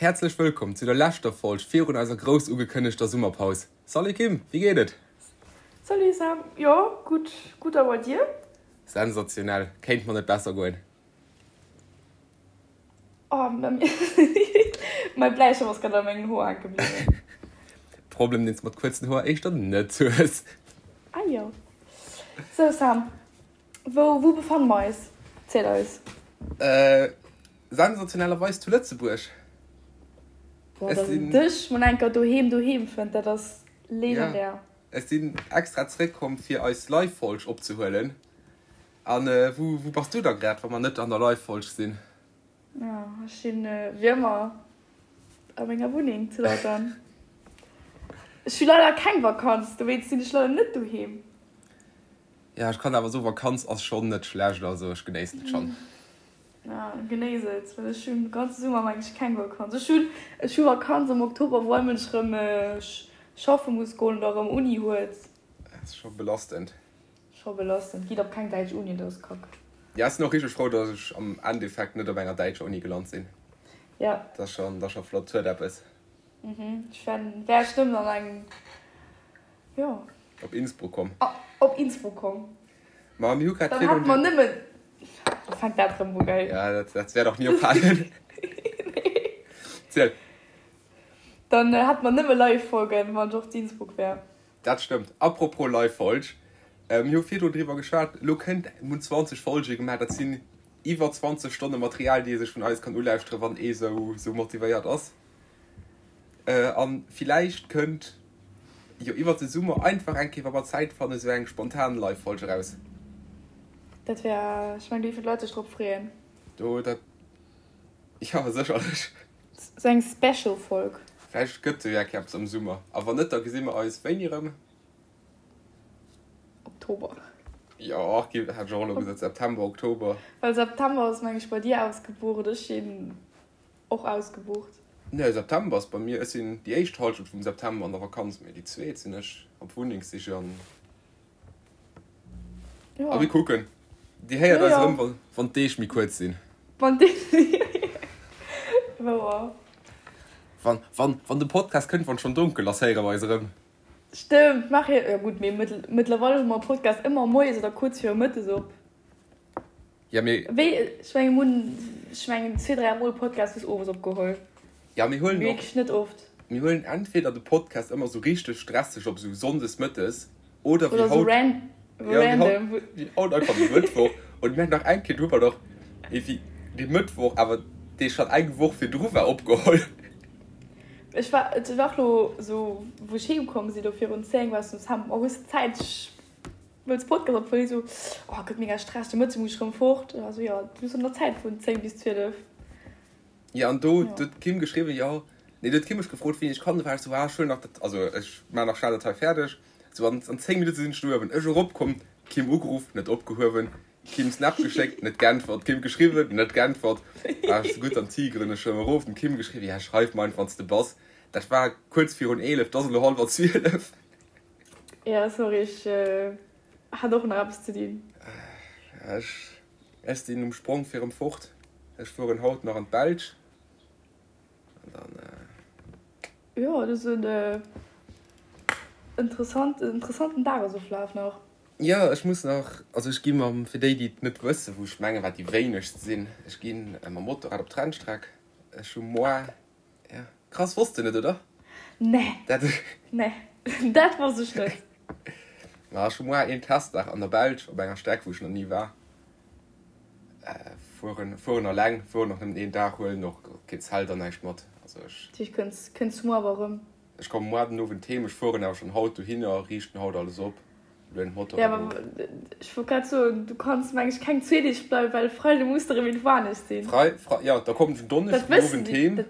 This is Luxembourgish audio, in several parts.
Häerzlech wëllkomm zu der leschter Folg virun eiser grouss ugekënnegter Summerpaus. Salut Kim, wéi geet et? Salut Sam, jo gutt, gutt a bei dir? Sensationell, kéint mer net besser goen. Oh, mäi Bläistëft ass grad a mengen Hoer hänke bliwwen. Problem deen s mat kuerzen Hoer éischter net hues. Ah jo. Sou Sam, wou wou befanne mer eis? Ziel eis. Sensationellerweis zu Lëtzebuerg. Boah, dass een dech mol enker doheem doheem fënnt, dat ass legendär. Ech sinn extra zeréckkomm fir eis Live-Folg opzehuelen. An wou wou bass du da grad, wa mer net an der Live-Folg sinn? Jo, ech sinn wéi ëmmer a menger Wunneng zu Lautern. Ech hu leider keng Vakanz, dowéinst sinn ech leider net doheem. Ja, ech kann awer soen, Vakanz ass schonn net schlecht, also ech genéissen et schonn. Ja, genéiss et, well ech hunn de ganze Summer meng ech keng Vakanz. Ech hunn ech hu Vakanz am Oktober, wou all Mënsch rëm schaffe muss goen oder rëm Uni huet. Dat ass scho belastend. Scho belastend. Gitt op keng däitsch Uni, dat ass kack. Ja, ech sinn och richteg frou, datt ech am Endeffekt net op enger däitscher Uni gelant sinn. Ja. Dat ass schonn, dat ass scho flott, huet eppes. Mhm, ech wär wär ech nëmmen an eng, jo. Op Innsbruck komm. Op Innsbruck komm. Ma mir hu grad Dann hätte mer nëmmen. Da fänkt dat rëm u, gell? Ja, dat, dat wäert och ni ophalen. Nee. Ziel. Dann hätte mer nëmme Live-Folgen, wann ech och zu Innsbruck wär. Dat stëmmt. Apropos Live-Folg, mir hu virdrun driwwer geschwat, elo kënnt, mir hunn 20 Folge gemaach, dat sinn iwwer 20 Stonne Material, déi ee sech vun eis kann ulauschteren, wann ee sou, sou motivéiert ass. An villäicht kënnt jo iwwert de Summer einfach eng Kéier, wa mer Zäit fannen, esou eng spontan Live-Folg eraus. Dat wär, ech mengen, do géifen d'Leit sech drop freeën. Do, dat, jo, sécherlech. Esou eng Special-Folg. Vläicht gëtt jo eng Kéier eppes am Summer. A wann net, da gesi mer eis wéini erëm? Oktober. Jo, hätt ech och elo gesot, September, Oktober. Well September ass, meng ech, bei dir ausgebucht. Ech sinn Och ausgebucht. Nee, September ass bei mir, ech sinn déi éischt Halschent vum September an der Vakanz, mee déi zweet sinn ech op Wunnengssiche an a mir kucken. Dir héiert eis erëm, wann d'Deeg méi kuerz sinn. Wann d'Deeg, wouer. Wann, wann, wann de Podcast kënnt, wann et schonn donkel ass, héiere mer eis erëm. Stëmmt, maach jo, jo gutt, mee mëttlerweil hu mer Podcast ëmmer moies oder kuerz viru mëttes op. Ja, mee. Wéi, ech mengen, mir hunn, ech mengen, zwee, dräi Mol Podcast bis owes opgeholl. Ja, mir huelen och. Wierklech net oft. Mir huelen entweder de Podcast ëmmer sou richteg stresseg op, sou sonndes mëttes, oder wéi haut. Oder sou random. Ja, wéi haut einfach de Mëttwoch. Und mir haten nach eng Kéier, do hu mer doch ewéi de Mëttwoch, awer dee schonn eng Woch virdru war, opgeholl. Ech war, et war och lo sou, wou ech heem komm sinn, do virun 10, war ech sou, Sam, oh, hues de Zäit? Ech Wëlls Podcast op wëll esou oh gëtt mega Stress de Mëtte muss ech rëm fort also jo du hues nach Zäit vun 10 bis 12. Jo an do huet d'Kim geschriwwen jo nee do huet d'Kim mech gefrot wéini ech kann do war ech sou ah ech huelen nach dat also ech maan nach schnell dat hei fäerdeg sou an an 10 Minutte sinn ech do uewen ech erop komm d'Kim ugeruff net opgehuewen Kim Snap geschéckt net geäntwert Kim geschriwwen net geäntwert war ech sou gutt an tigeren ech rëm erof dem Kim geschriwwen ja schreif mer einfach wann s de bass dat war kuerz virun 11 't ass elo hallwer 12. Ja sorry ech hat och nach eppes ze dinn. Ech ech sinn um Sprong fir erëm fort. Ech fueren haut nach an d'Belsch an dann. Jo et ass en interessant interessanten Dagesoflaf nach. Jo ech muss nach, also ech gi mam, fir déi déi et net wëssen, wou ech mengen wat déi wéinegst sinn, ech gi mam Motorrad op d'Rennstreck. Ech hu moar Ja, krass, wosst de net, oder? Nee. Dat. Nee, dat wosst ech net. Ma ech hu moar een Testdag an der Belsch op enger Streck, wou ech nach ni war. Fueren, fueren alleng, fueren och nëmmen een Dag, huelen och kee Zelt an näischt mat. Also ech. Dat heescht, kënns, kënns du moar awer erëm? Ech komme moar den Owend heem, ech fueren awer schonn haut dohinner, riichten haut alles op. Ja, awer ech wollt grad soen, du kanns meng ech keng zwee Deeg bleiwen, well Freide muss de rëm irgendwou anescht sinn. Frei, frei, ja, da kommen ech en Donneschden Owend heem.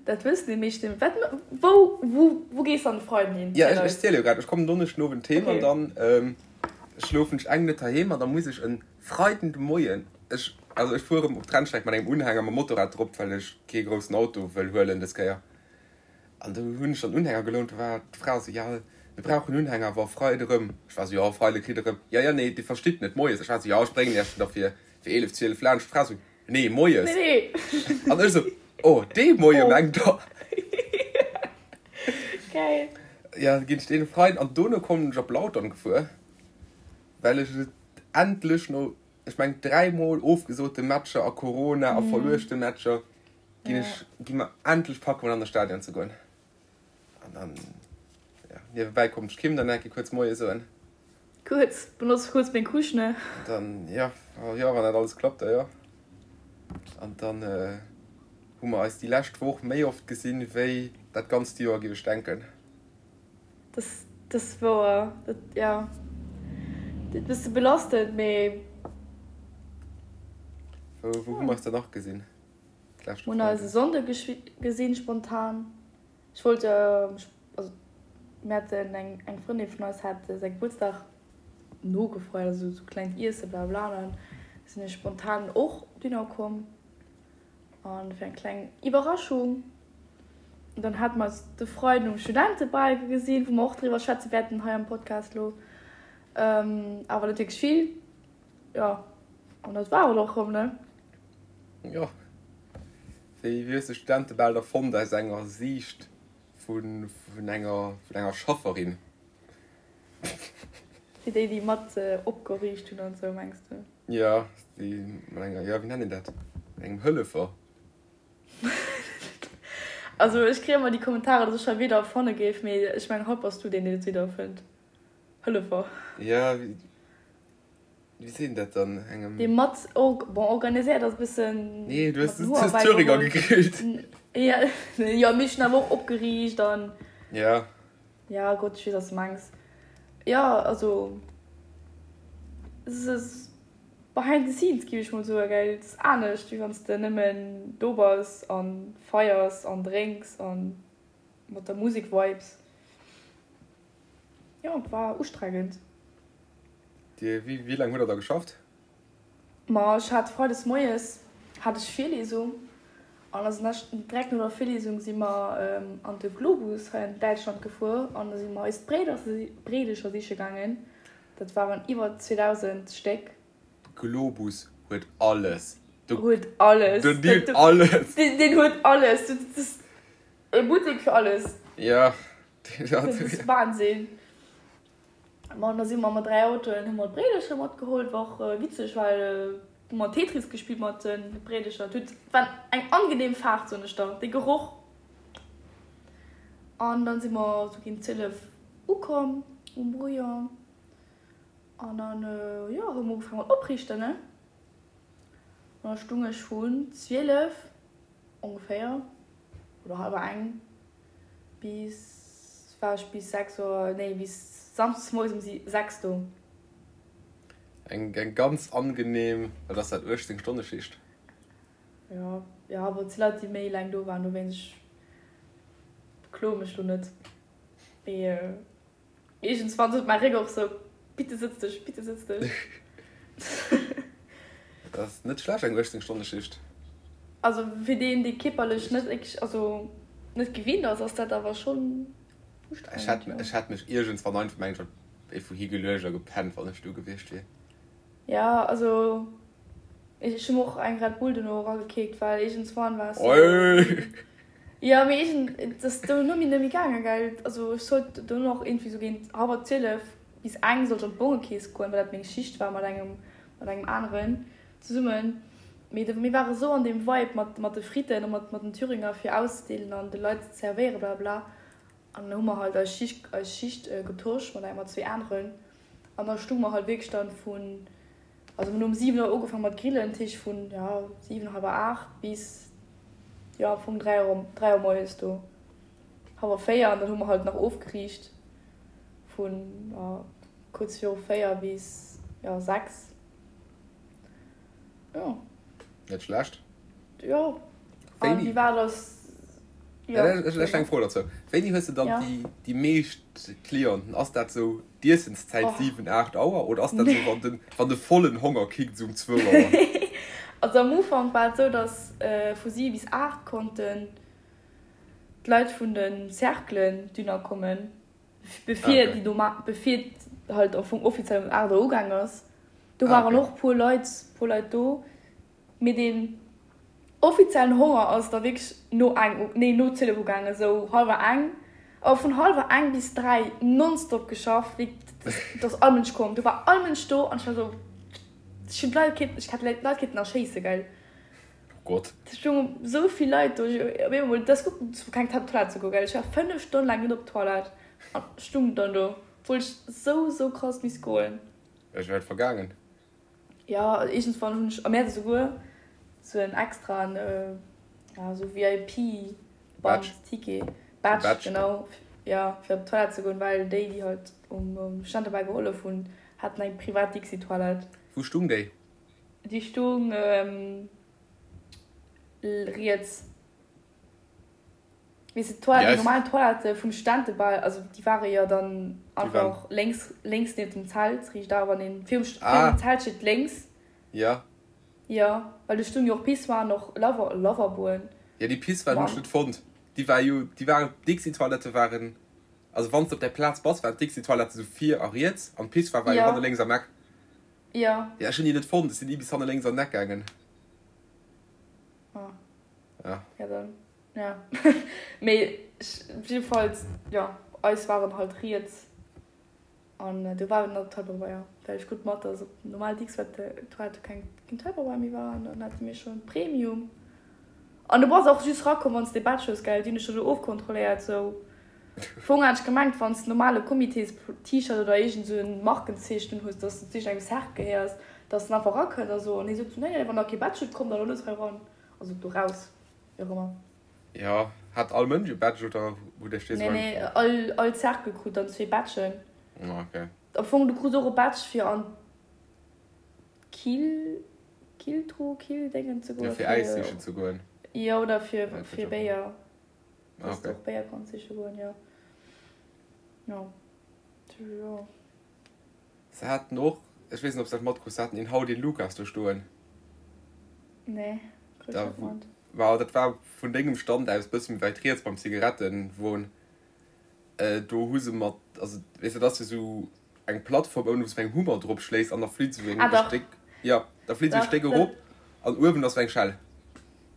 Dat wëssen déi meeschten. Wat, wou, wou, wou gees de an de Freiden hin? Ja, ech, ech ziele jo grad. Ech kommen Donneschden Owend heem an dann schlofen ech eng Nuet heiheem an da muss ech en Freiden de Moien, ech, also ech fuere op d'Rennstreck mat engem Unhänger mam Motorrad drop, well ech kee groussen Auto wëll huelen dës Kéier. An do hunn ech dann Unhänger gelount. Do war d'Fra esou, Jo, mir brauchen Unhänger, awer Freide rëm. Ech war esou, Jo, Freide kritt der rëm. Jo, jo, nee, Dir verstitt net, moies. Ech war esou, Jo, ech bréngen Iech der fir 11, 12 laanscht. D'Fra esou, Nee, moies. Nee. An ech esou, Oh, dee Moie mengt der. Geil. Ja, ginn ech dee Freiden an dono kommen ech op Lautern gefuer, well ech et endlech no, ech meng dräimol ofgesote Matcher a Corona a verluechte Matcher, ginn ech, gi mer endlech packen, mol an de Stadion ze goen. An dann, ja, niewebäi konnt ech Kim dann eng Kéier kuerz Moie soen. Kuerz, benotz kuerz meng Couche, ne? An dann, ja, jo, wann dat alles klappt, da jo. An dann hu mer eis déi lescht Woch méi oft gesinn, wéi dat ganzt Joer, géif ech denken. Dat, dat ass wouer. Dat, ja, dat bësse belastend, mee. Wou, wou hu mer eis dann nach gesinn? D'leschte Mir hunn eis e Sonnde gesinn, spontan. Ech wollt, also mir haten eng eng Frëndin vun eis hat säi Gebuertsdag nogefeiert, also sou klengt Iesse bla bla an dann sinn ech spontan och dunner komm an fir eng kleng Iwwerraschung. An dann hate mer eis de Freiden um Studentebal gesinn, wou mer och driwwer schwätze wäerten hei am Podcast lo, awer net wierklech vill. Jo, an dat war et och rëm, ne? Jo. Wéi hues de Studentebal da fonnt aus enger Siicht vun enger vun enger Schafferin? Fir déi, déi mat opgeriicht hunn an esou, mengs de? Jo, déi mat enger, jo, wéi nennt een dat, engem Hëllefer. Also ech kréie ëmmer déi Kommentarer, datt ech hei Wierder erfanne géif, mee ech mengen haut bass du deen, deen et Wierder erfënnt. Hëllefer. Jo. Wéi seet een dat dann? Engem. Dee mat or, bon, organiséiert ass e bëssen. Nee, du hues du Thüringer gegrillt. Ja, jo, mee ech hunn awer och opgeriicht an. Ja. Ja, Gott, ech weess, wat s de mengs. Jo, also, es ass behind the scenes, géif ech mol soen, gell. Et ass anescht, wéi wann s de nëmmen do bass a feiers an drénks a mat der Musek vibes. Jo, et war ustrengend. Dir, wéi, wéi laang hutt der da geschafft? Ma ech hat freides moies hat ech Virlesung an da sinn ech direkt no der Virlesung si mer an de Globus hei an Däitschland gefuer an da si mer eis Bréidecher siche gaangen. Dat waren iwwer 2.000 Stéck. Globus huet alles. Huet alles. Den huet alles. Den huet alles. Dat ass e Buttek fir alles. Ja. Dat ass Wahnsinn. Ma an da si mer mat 3 Autoen, hu mer d'Bréidercher matgeholl. War och witzeg, well hu mer Tetris gespillt mat de Bréidercher. Et huet, war eng angenehm Faart, soen ech der, dee Geroch. An dann si mer sou géint 12 ukomm um Brouillon. An dann, jo, hu mer ugefaange mat opriichten, ne. An da stung ech vun 12 ongeféier oder hallwer eng Bis war ech bis 6 Auer, nee bis Samsdes moies um 6 do. Eng eng ganz angenehm, wat ass dat, 18 Stonne Schicht? Jo, jo, awer et si Leit déi méi laang do waren, dowéinst ech bekloe mech lo net. Mee Iergendswann sot mäi Réck och sou, Bitte sëtz dech, bitte sëtz dech. Dat ass net schlecht, eng 18 Stonne Schicht. Also fir deen, dee kierperlech net wierklech, also net gewinnt ass, ass dat awer schonn ustrengend, jo. Ech hätt mech iergendswann einfach, mengen ech, iergendwou higeluecht a gepennt, wann ech do gewiescht wier. Jo, also ech hu mer och eng Red Bull dono eragekickt, well iergendswann war es sou. Jo, mee iergend, et ass dono mir net méi gaangen, gell. Also ech sollt dono och iergendwéi sou géint hallwer 12 bis eng sollt ech an d'Bongekeess goen, well dat meng Schicht war mat engem, mat engem aneren zesummen. Mee de, mir ware sou an deem Vibe mat, mat de Fritten a mat, mat den Thüringer fir auszedeelen an de Leit ze zerwéieren, blablabla. An dann hu mer halt eis Schicht, eis Schicht getosch mat engem, mat zwee aneren. An da stung mer halt wierklech dann vun, also mir hunn um 7 Auer ugefaangen mat grillen, dat heescht vun, ja, 7, hallwer 8 bis, jo, am Fong 3 Auer, 3 Auer moies do, hallwer 4. An dann hu mer halt nach ofgeriicht vun, ja, kuerz viru 4 bis, ja, 6. Jo. Net schlecht. Jo. An wéi war das? Jo. Ech hu eng Fro dozou. Wéini hues de dann déi, déi meescht Clienten? Ass dat sou d'Iessenszäit 7, 8 Auer oder ass dat sou wann den, wann de vollen Honger kickt sou um 2 Auer? Also am Ufank war et sou, dass vu 7 bis 8 konnten d'Leit vun de Cerclen dunner kommen, bevir déi do, bevir et halt am Fong offiziell um 8 Auer ugaang ass. Do waren och puer Leit, puer Leit do, mee deen. Offiziellen Honger ass da wierklech no eng, nee no 12 ugaangen, esou hallwer eng. A vun hallwer eng bis 3 nonstop geschafft, wéi do ass all Mënsch komm, do war all Mënsch do an ech war esou, ech hunn d'Leit kéinten, ech hätt d'Leit kéinten erschéisse gell. Oh Gott. Et stoungen esou vill Leit do, ech op eemol, et ass gutt zu keng Toilette ze goen gell, ech war 5 Stonnen laang net op d'Toilette an stung dann do, obwuel ech esou esou krass misst goen. Ech wär vergaangen. Jo, iergendswann hunn ech am Mäerz esouguer sou en extraen, ja, sou VIP-Band, Ticket, Badge, genau, jo, fir op d'Toilette ze goen, well déi, déi halt um Stand dobäi gehollef hunn, haten eng privat Dixi-Toilette. Wou stung déi? Déi stung riets. Weess de, d'Toilette, déi normal Toilette vum Studentebal, also déi ware jo dann einfach lénks, lénks nieft dem Zelt, riicht a wann een virum, virum Zelt steet, lénks. Jo. Jo, well do stoung jo och Pissoiren, och Lava, Lavaboen. Jo, déi Pissoiren hunn ech net fonnt. Déi war jo, déi waren, d'Dixi-Toilette waren, also wann s de op där Plaz bass, waren d'Dixi-Toilette esou vir a riets an d'Pissoire war jo hanne lénks am Eck. Jo. Jo, ech hunn déi net fonnt, ech sinn ni bis hanne lénks an den Eck gaangen. Ah. Ja. Ja, dann. Ja. Mee jiddefalls, jo, eis waren halt riets an do war nach Tupperware, well ech krut mat, dass op normal Dixwette-Toilette keng Tupperware méi war an dann hate mir schonn Premium. An du bass och just rakomm, wann s de Badge hues, gell? Déi hunn dech do ofkontrolléiert, sou. Fong hat ech gemengt, wann s de normale Comités-T-Shirt oder iergend sou en Markenzeechen un hues, dass de zu iergendengem Cercle gehéiers, dass den einfach rakënnt a sou. An hie sot sou, nee, nee, wann der kee Badge hutt, kommt der elo net hei ran. Also do raus, wéi och ëmmer. Jo, hat all Mënsch e Badge oder hutt Iech dee sou eng? Nee, nee, all, all Cercle krut dann zwee Badgen. Ah, okay. Am Fong, du krus och e Badge fir an d'Kill, Killtruh, Killdéngen ze goen. Jo, fir Äis sichen ze goen. Jo, oder fir, fir Béier. Dass du och Béier kanns siche goen, jo. Jo, jo. Se haten och, ech weess net ob s dat matkruss, se haten een Hau den Lukas do stoen. Nee, krut ech net mat. Ma dat war vun dengem Stand aus bësse méi wäit riets beim Zigarettenwon. Do hu se mat, also weess de, dat ass jo sou eng Plattform ouni wou s de mat engem Hummer drop schléis an da flitt sou eng Stéck, jo, da flitt sou e Stéck erop an uewen ass sou eng Schell.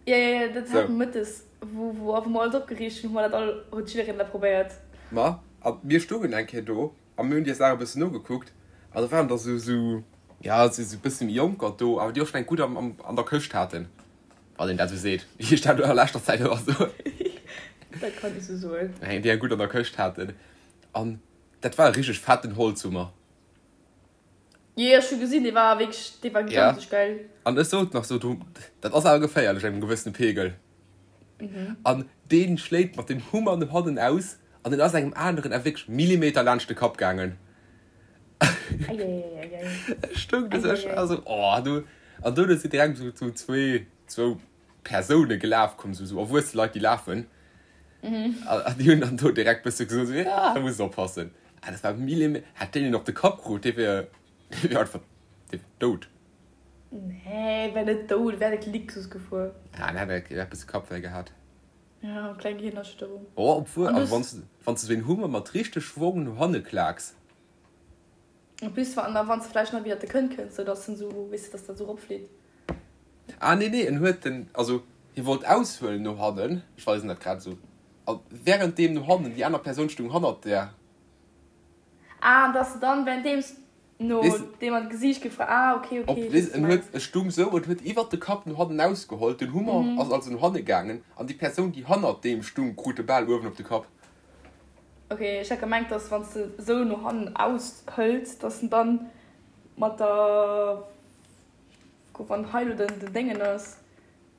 Jo, jo, jo, dat hat mer mëttes, wou wou mer alles opgeriicht hunn, hu mer dat all, huet jiddereen dat probéiert. Ma a mir stoungen eng Kéier do A mir hunn déi Saach e bëssen nogekuckt an da waren der sou, sou, ja, sou e bësse méi Jonker do, awer déi och schonn eng gutt am, am, an der Këscht haten, wann een dat esou seet, wéi ech dat elo a leschter Zäit ëmmer soen. Dat kann ee sou soen. Eng, déi eng gutt an der Këscht haten. An dat war e richteg fetten Holzhummer. Jee, ech hu gesinn, dee war wierklech, dee war gigantesch geil. An ech sot nach sou, du, dat ass awer geféierlech engem gewëssene Pegel. An dee schléit mat dem Hummer no hannen aus an en ass engem aneren awer wierklech Millimeter laanscht de Kapp gaangen. Ech stoung do sou, ech war sou, oh du. An dono sinn direkt sou sou zwee, zwou Persoune gelaf komm, sou sou erwuesse Leit, déi lafen. An déi hunn dann do direkt bësse gesot, sou, ja, do muss oppassen. Ah, dat war Millime, hätt deen een op de Kapp krut, dee wier, dee wier einfach, dee wier dout. Nee, wär net dout, wär net Lixus gefuer. Ah, en hätt e bësse Kappwéi gehat. Ja, kleng Gehirnerschütterung. Oh, obwuel, also wann s de, wann s de sou een Hummer mat richteg Schwong no hanne klaaks. En plus, wann, wann s de vläicht nach widder de Kënn kënns, sou dass en sou, weess de, dass dat sou eropflitt. Ah, nee, nee, en huet den, also hie wollt aushuelen no hannen, ech weisen dat grad esou, a währenddeem no hannen, déi aner Persoun stung hannert där. Ah, an dass de dann währenddeems no deem an d'Gesiicht gefra, ah, okay, okay, ech weess, wat du mengs. En stung sou, en huet iwwert de Kapp no hannen ausgeholl, den Hummer ass also no hanne gaangen, an déi Persoun, déi hannert deem stung, krut de Bal uewen op de Kapp. Ok, ech hat gemengt, dass wann s de sou no hannen aushëls, dass en dann mat der, wann hei lo den Déngen ass,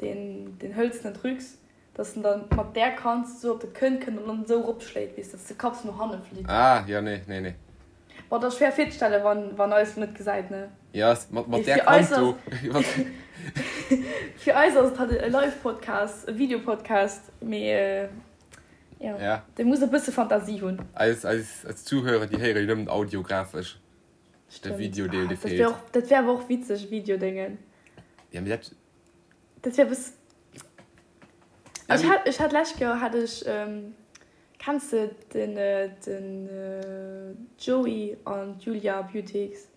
deen den hëlzenen Trucs, Dass en dann mat där Kant sou op de Kënn kënnt an dann esou eropschléit, weess, dass de Kapp sou no hanne flitt. Ah, jo, nee, nee, nee. Bon, dat ass schwéier virzestellen, wann, wann eis lo net gesäit, ne? Jo, mat, mat där Kant do. Fir eis ass et halt e Live-Podcast, e Video-Podcast, mee jo, ja, dee muss e bësse Fantasie hunn. Eis, eis, eis Zuhörer, déi héiere jo nëmmen audiografesch. De Video-Deel, dee feelt. Dat wär awer och witzeg, Video-Déngen. Ja, mee dat. Dat wär bëss. Ech hat, ech hat lescht Joer hat ech, kenns de den, den Joey an d'Julia Beautx?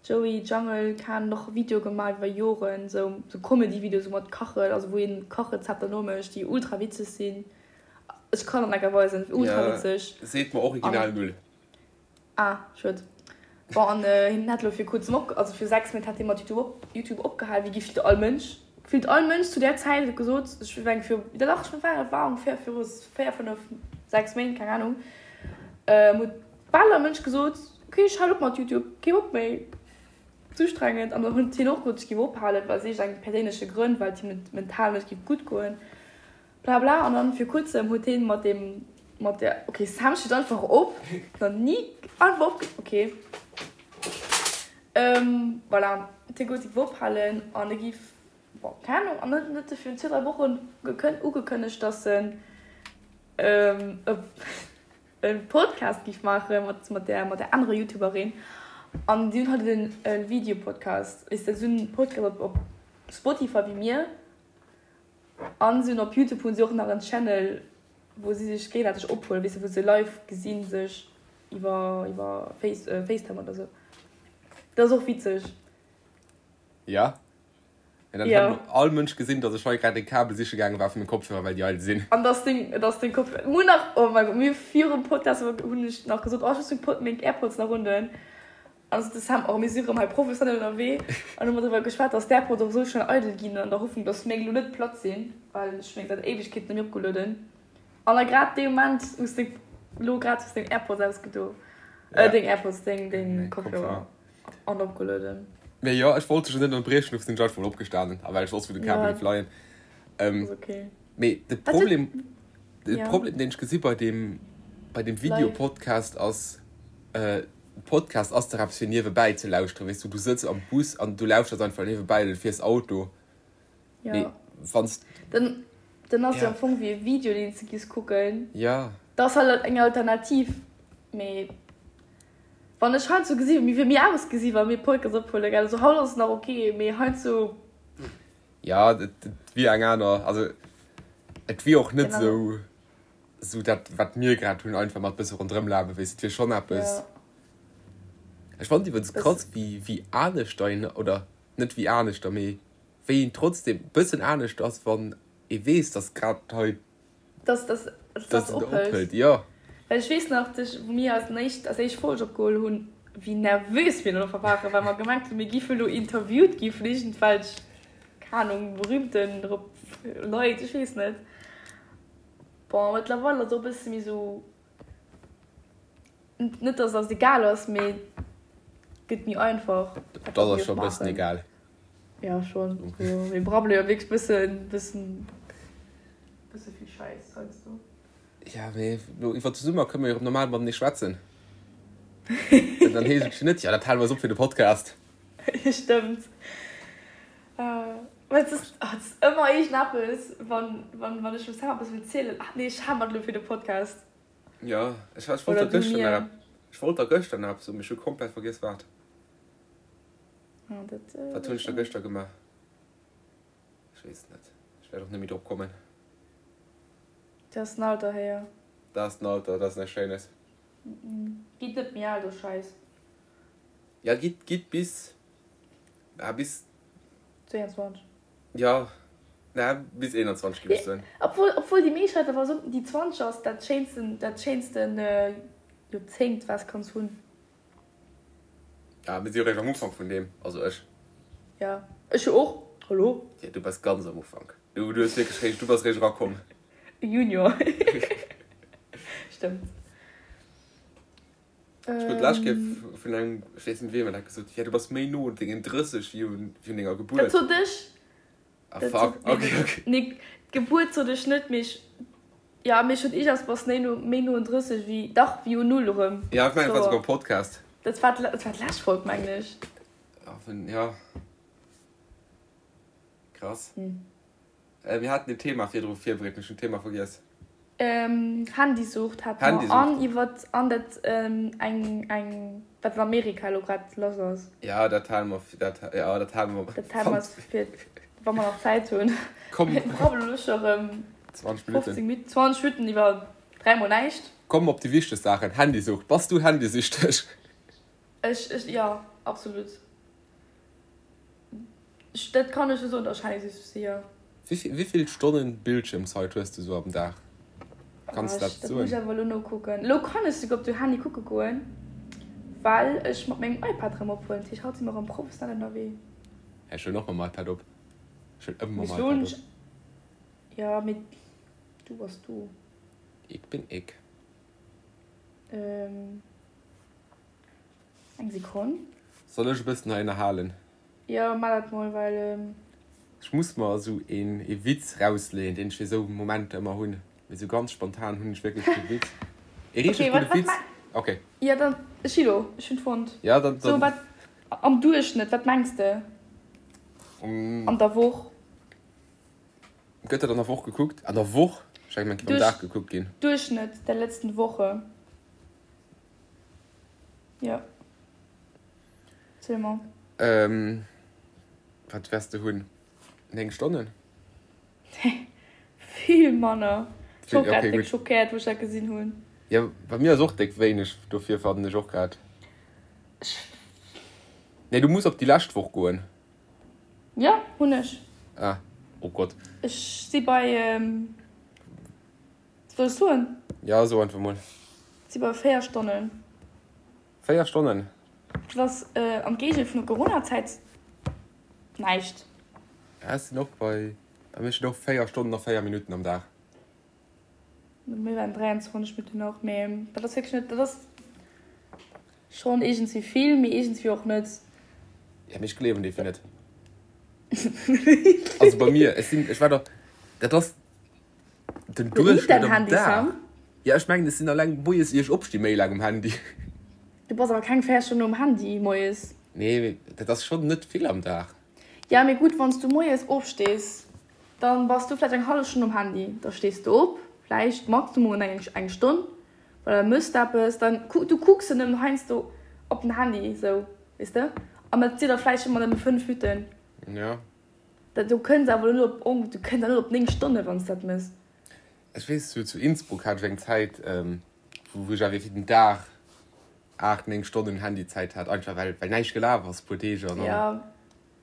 Joey Jungle kan och Videoe gemaach iwwer Joren, sou sou Comedy-Videoe sou mat Kachen, also wou een Kachrezepter nomécht, déi ultra witzeg sinn. Ech kann der enker weisen, ultra Ja, witzeg. seet mer original An null. ah, schued. Bon, an hien hat elo fir kuerzem op, also fir 6 Méint hat hie mat YouTube op YouTube opgehal, wéi gefillt all Mënsch, gefillt all Mënsch zu där Zäit huet gesot, ech mengen fir, dach ech war, et war ongeféier viru 4, 5, 6 Méint, keng Ahnung, huet bal all Mënsch gesot, ok ech halen op mat YouTube, kee Bock méi, ze ustrengend. An dann huet hien och gesot, ech géif ophalen, well aus eng perséinleche Grënn, well et him net mental net géif gutt goen, bla bla. An dann vir kuerzem huet hien mat deem, mat der, ok Sam steet einfach op, nach ni einfach op, ok voilà, huet hie gesot, hie géif ophalen an e géif, bon keng Ahnung, an dann huet e virun zwee, dräi Wochen ugekënnegt, dass en e. e Podcast giff maachen mat mat der mat der anerer Youtuberin an si hunn halt en e Videopodcast, weess de, si hunn en Podcast op op Spotify wéi mir an si hunn op Youtube hunn si och nach en Channel wou si sech géigesäiteg ophuelen, weess de, wou se live gesinn sech iwwer iwwer Face Facetime oder sou. Dat ass och witzeg. Ja. Mä dann Ja. hätt all Mënsch gesinn, dass ech hei grad e Kabel siche gaange war fir meng Kopfhörer, well déi eidel sinn. An dass deng, dass deng Kopfhörer, mir hunn nach, oh mein Gott, mir virum Podcast hunn ech nach gesot, oh ech muss meng Pod, meng Airpods nach undoen. An sot de Sam, oh mir si rëm hei professionell ënnerwee. An hu mer driwwer geschwat, dass d'Airpods och esou schnell eidel ginn, an der Hoffnung, dass meng elo net platt sinn, well ech hu meng säit Éiwegkeeten net méi opgelueden. An da grad dee Moment hues de elo grad hues deng Airpods ausgedo, Ja. deng Airpods, deng, deng Meng Kopfhörer. Kopfhörer. An opgelueden. Mee jo, ech wollt dech jo net ënnerbriechen, dofir sinn ech einfach mol opgestanen, a well ech wosst wou de Kabel Ja. géif leien. Ähm, Ass okay. mee de Wat huet. Problem, de Ja. Problem deen ech gesi bei deem, bei deem Live. Video-Podcast ass, äh, Podcast ass dach eppes fir niewebäi ze lauschteren, weess du, du sëtz am Bus an du lauschters einfach niewebäi oder du fiers Auto. Ja. Mee wanns. Dann, dann ass jo Ja. am Fong wéi e Video deen s de giss kucken. Ja. Dat ass halt eng Alternativ, mee. Wann ech heiansdo gesi wéi mir ausgesi wa mir Podcast ophuelen, gell, also haut ass et nach ok, mee heiansdo. Ja, et wier eng aner, also et wier och net esou esou dat wat mir grad hunn, einfach mat bësse ronderëm lafe, weess, et wier schonn eppes. Ech fannen et iwwregens krass wéi wéi aneschter een, oder net wéi aneschter, mee wéi een trotzdem bëssen anescht ass wann ee weess, datt grad hei Dass, dass, dass Dass dat et ophëlt. ophëlt, jo. Well ech weess nach, dass, wou mir eis éischt, eis éischt Folg opgeholl hunn, wéi nervös mir dann waren, well mer gemengt hunn, mir géife lo interviewt gi vun iergendwelch, keng Ahnung, berühmten Leit, ech weess net. Bon, mëttlerweil ass et och e bësse méi sou, net dass et eis egal ass, mee et gëtt méi einfach, Et wat ass mir eis scho e bëssen maachen. egal. Jo, schonn. Mir brabbele jo wierklech bëssen, bëssen. Bësse vill Schäiss heiansdo. Ja, mee lo iwwer de Summer kënne mer jo erëm normal matenee schwätzen. Dann heescht et jo net, jo, dat hale mer eis op fir de Podcast. Stëmmt. Mä et ass, et ass ëmmer iergendeppes, wann, wann, wann ech dem Sam eppes wëll zielen, ach nee, ech hale mer et elo fir de Podcast. Jo, ech, ech wollt Oder der du gëschter nach mir. ech wollt der gëschter nach eppes soen, mee ech hu komplett vergiess wat. Ah, dat, Wat hunn ech da gëschter gemaach? Ech weess et net. Ech wäert och net méi drop kommen. Dat ass den Alter, héier. Dat ass den Alter, dat ass näischt Schéines. Gitt net méi al, do Schäiss. Ja, gitt, gitt bis, ah, bis. 22. Ja, na, bis 21, géif ech soen. Obwuel, obwuel déi meescht Leit awer soen, déi 20 ass dat schéinsten, dat schéinsten Joerzéngt, wat s kanns hunn. Ja, mir si jo réischt am Ufank vun deem, also ech. Ja, ech jo och, hallo? Ja, du bass ganz am Ufank. Du, du hues wierklech réischt, du bass réischt erakomm. Junior. Stëmmt. Ech krut d'lescht Kéier vun engem, ech weess net wiem, dat gesot, ja, du bass méi no un dengen 30 wéi un denger Gebuert. Dat sot ech. Ah fuck, ok, ok. Nee, d'Gebuert sot ech net, mee ech, ja, mee ech sot iergendwas, bass méi no, méi no un 30 wéi, dach, wéi un Null erëm. Ja, ech mengen, et war souguer am Podcast. Dat war, dat war d'lescht Folg, mengen ech. Ah, vun, ja. Krass. Mir haten en Thema virdru virbereet, mee ech hunn d'Thema vergiess. Handysucht hate mer an iwwert an dat eng eng wat an Amerika elo grad lass ass. Ja, dat hale mer dat ja dat hale mer. Dat hale mer fir wa mer nach Zäit hunn. Komm. Mir brabbelen elo scho rëm 20 Minutten. 15 Minutten, 20 Minutten iwwer dräimol näischt. Komm op déi wichteg Saachen, Handysucht. Bass du handysüchteg? Ech ech jo, absolut. Dat kann ech jo soen, dass ech handysüchteg sinn, jo. Wéi vill Stonnen Bildschirmzeit hues du sou am Dag? Kanns du dat soen? Dat muss ech awer elo nokucken. Elo kann ech souguer op de Handy kucke goen, well ech mat mengem iPad erëm ophuelen. Dat heescht, haut si mer erëm professionell ënnerwee. Ech huelen och mam iPad op. Ech huelen ëmmer mam iPad op. Jo, mee du bass du. Ik bin ik. Eng Sekonn. Soll ech e bëssen hei ënnerhalen? Jo, maach dat mol, well. Ech muss mer esou een ee Witz rausleeën, deen ech fir esou Momenter ëmmer hunn. Mee esou ganz spontan hunn ech wierklech kee Witz. Ee richteg gudde Witz. Ok. Jo, dann, ech si do, ech hunn fonnt. Jo, dann. So, wat am Duerchschnëtt, wat mengs de? An der Woch? Gëtt dat an der Woch gekuckt? An der Woch? Ech hat gemengt, et géif am Dag gekuckt ginn. Duerchschnëtt der letzten Woche. Jo. Ziel mol. Ähm, wat wäers de hunn? 9 Stonnen? Nee, vill manner. Ech war och grad déck schockéiert, wou ech dat gesinn hunn. Jo, bei mir ass och déck wéineg, dofir fannen ech och grad. Nee, du muss op déi lescht Woch goen. Jo, hunn ech. Ah, oh Gott. Ech si bei, soll ech soen? Jo, so einfach mol. Si bei 4 Stonnen. 4 Stonnen? Dat ass am Géigel vun der Coronazäit näischt. Ja, ech sinn och bei, bei mir steet och 4 Stonnen a 4 Minutten am Dag. Mir waren 23 Minutten och, mee dat ass wierklech net, dat ass schonn iergendwéi vill, mee iergendwéi och net. Ja, mee ech gleewen dee fir net. Also bei mir, ech sinn, ech war der, dat ass den Duerchschnëtt am Dag. Ja, ech mengen, ech sinn alleng moies ier ech opsti méi laang um Handy. Du bass awer keng 4 Stonnen um Handy moies. Nee, mee dat ass schonn net vill am Dag. Ja, mee gutt, wann s du moies opstees, Dann bass du vläicht eng hallef Stonn um Handy, da stees du op, vläicht maximum eng eng Stonn, well da mëss d'eppes, dann du kucks jo nëmmen heiansdo op den Handy esou, weess de, an dat si da vläicht ëmmer nëmme 5 Minutten. Jo. Dat du kënns awer net op du kënns awer net op 9 Stonne wann s dat mëss. Ech weess, zu zu Innsbruck hat ech eng Zäit, wou ech awer fir den Dag 8, 9 Stonnen Handyzäit hat, einfach well well näischt gelaf ass, puer Deeg an dann. Jo.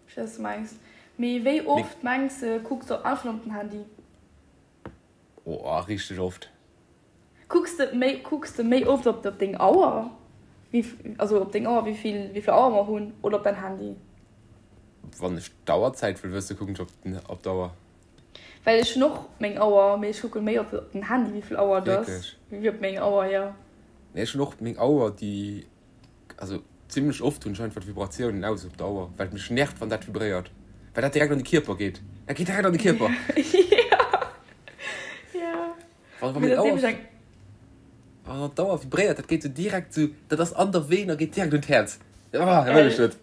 Ech weess, wat du mengs. Mee wéi oft mengs de kucks de einfach op den Handy? Oh, richteg oft. Kucks de méi, kucks de méi oft op deng Auer, wéi, also op deng Auer, wéi vill, wéi vill Auer mer hunn, oder op däin Handy? Wann ech d'Auerzäit wëll wëssen, kucken ech op den, op d'Auer. Well ech hunn och meng Auer, mee ech kucke méi op den Handy, wéi vill Auer et ass, wéi op meng Auer, jo. Nee, ech hunn och meng Auer, déi Also zimlech oft hunn ech einfach d'Vibratiounen aus op der Auer, well et mech nervt wann dat vibréiert, well dat direkt an de Kierper geet. Dat geet direkt an de Kierper. Ja. Wann wann meng Auer wann d'Auer vibréiert, dat geet sou direkt sou, dat ass an der Veen a geet direkt un d'Häerz. Ah, dat wëll ech net.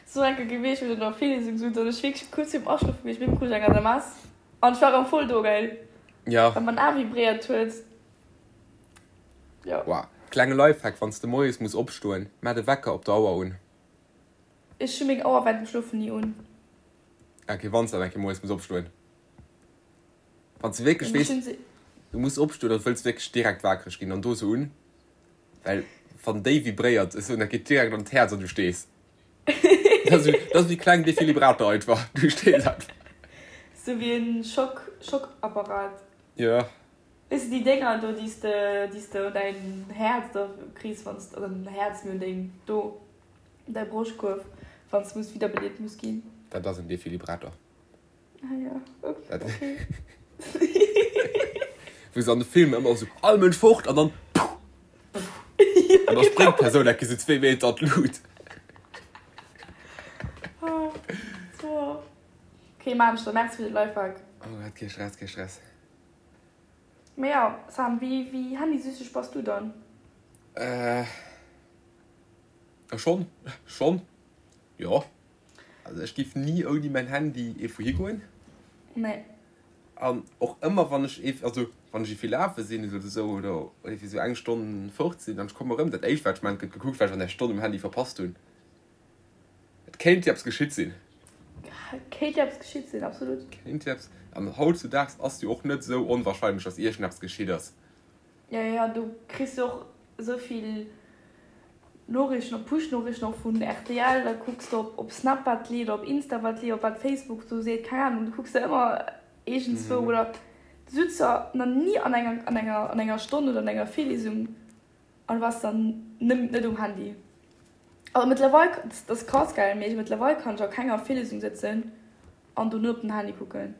Sou eng Kéier gewiescht, wou ech an der Virliesung sot an ech wierklech kuerz virum Aschlofe gewiescht bin, krut ech eng SMS an ech war erëm voll do, gell? Ja. Well mäin A vibréiert huet. Jo. Wow. Klenge Lifehack, wanns de moies muss opstoen, maach de Wecker op der Auer un. Ech hu meng Auer während dem Schlofen ni un. Ok, wanns de dann eng Kéier moies muss opstoen. Wanns de wierklech weess, du muss opstoen an wëlls wierklech direkt wakereg ginn, dann do se un, well wann déi vibréiert, ech soen, dat geet direkt an d'Häerz an du stees. Dat ass dat ass wéi kleng Defibrillator einfach, du stees einfach. Sou wéi en Schock, Schockapparat. Jo. Weess de déi Dénger do déi s de déi s de un däin Häerz da kriss wann s oder net Häerz mee un deng do un däi Broschtkuerf wann s muss widderbelieft muss ginn. Dat ass en Defibrillator. Ah jo okay. Wou se an de Filmer ëmmer esou all Mënsch fort an dann puh an da spréngt d'Persoun enke sou zwee Meter an d'Lut. Okay maan ech da. Merci fir de Lifehack. Oh Gott, kee Stress, kee Stress. Mee jo, Sam, wéi wéi handysüchteg bass du dann? Äh, schonn, schonn, jo. Also ech giff ni ouni mäin Handy ierfwou higoen. Nee. An och ëmmer wann ech ierf, also wann ech ierfwéi lafe sinn oder esou oder ierfwéi esou eng Stonn fort sinn an ech komme rëm, dat éischt wat ech man, gëtt gekuckt wat ech an där Stonn um Handy verpasst hunn. Et kéint jo eppes geschitt sinn. Kéint jo eppes geschitt sinn, absolut. Kéint jo eppes. An hautzudaags ass jo och net esou onwahrscheinlech, dass iergendeppes geschitt ass. Jo, jo, du kriss jo och esou vill. Noriichten, op Push-Noriichten och vun rtl, da kucks de op Snap wat leeft, op Insta wat leeft, op wat Facebook do seet, keng Ahnung, du kucks der ëmmer iergendzwou oder du sutz der nach ni an enger, an enger, an enger Stonn oder an enger Virliesung an du bass dann net um Handy. Also mëttlerweil, dat ass krass gell, mee mëttlerweil kann ech a kenger Virliesung sëtzen an do net op den Handy kucken.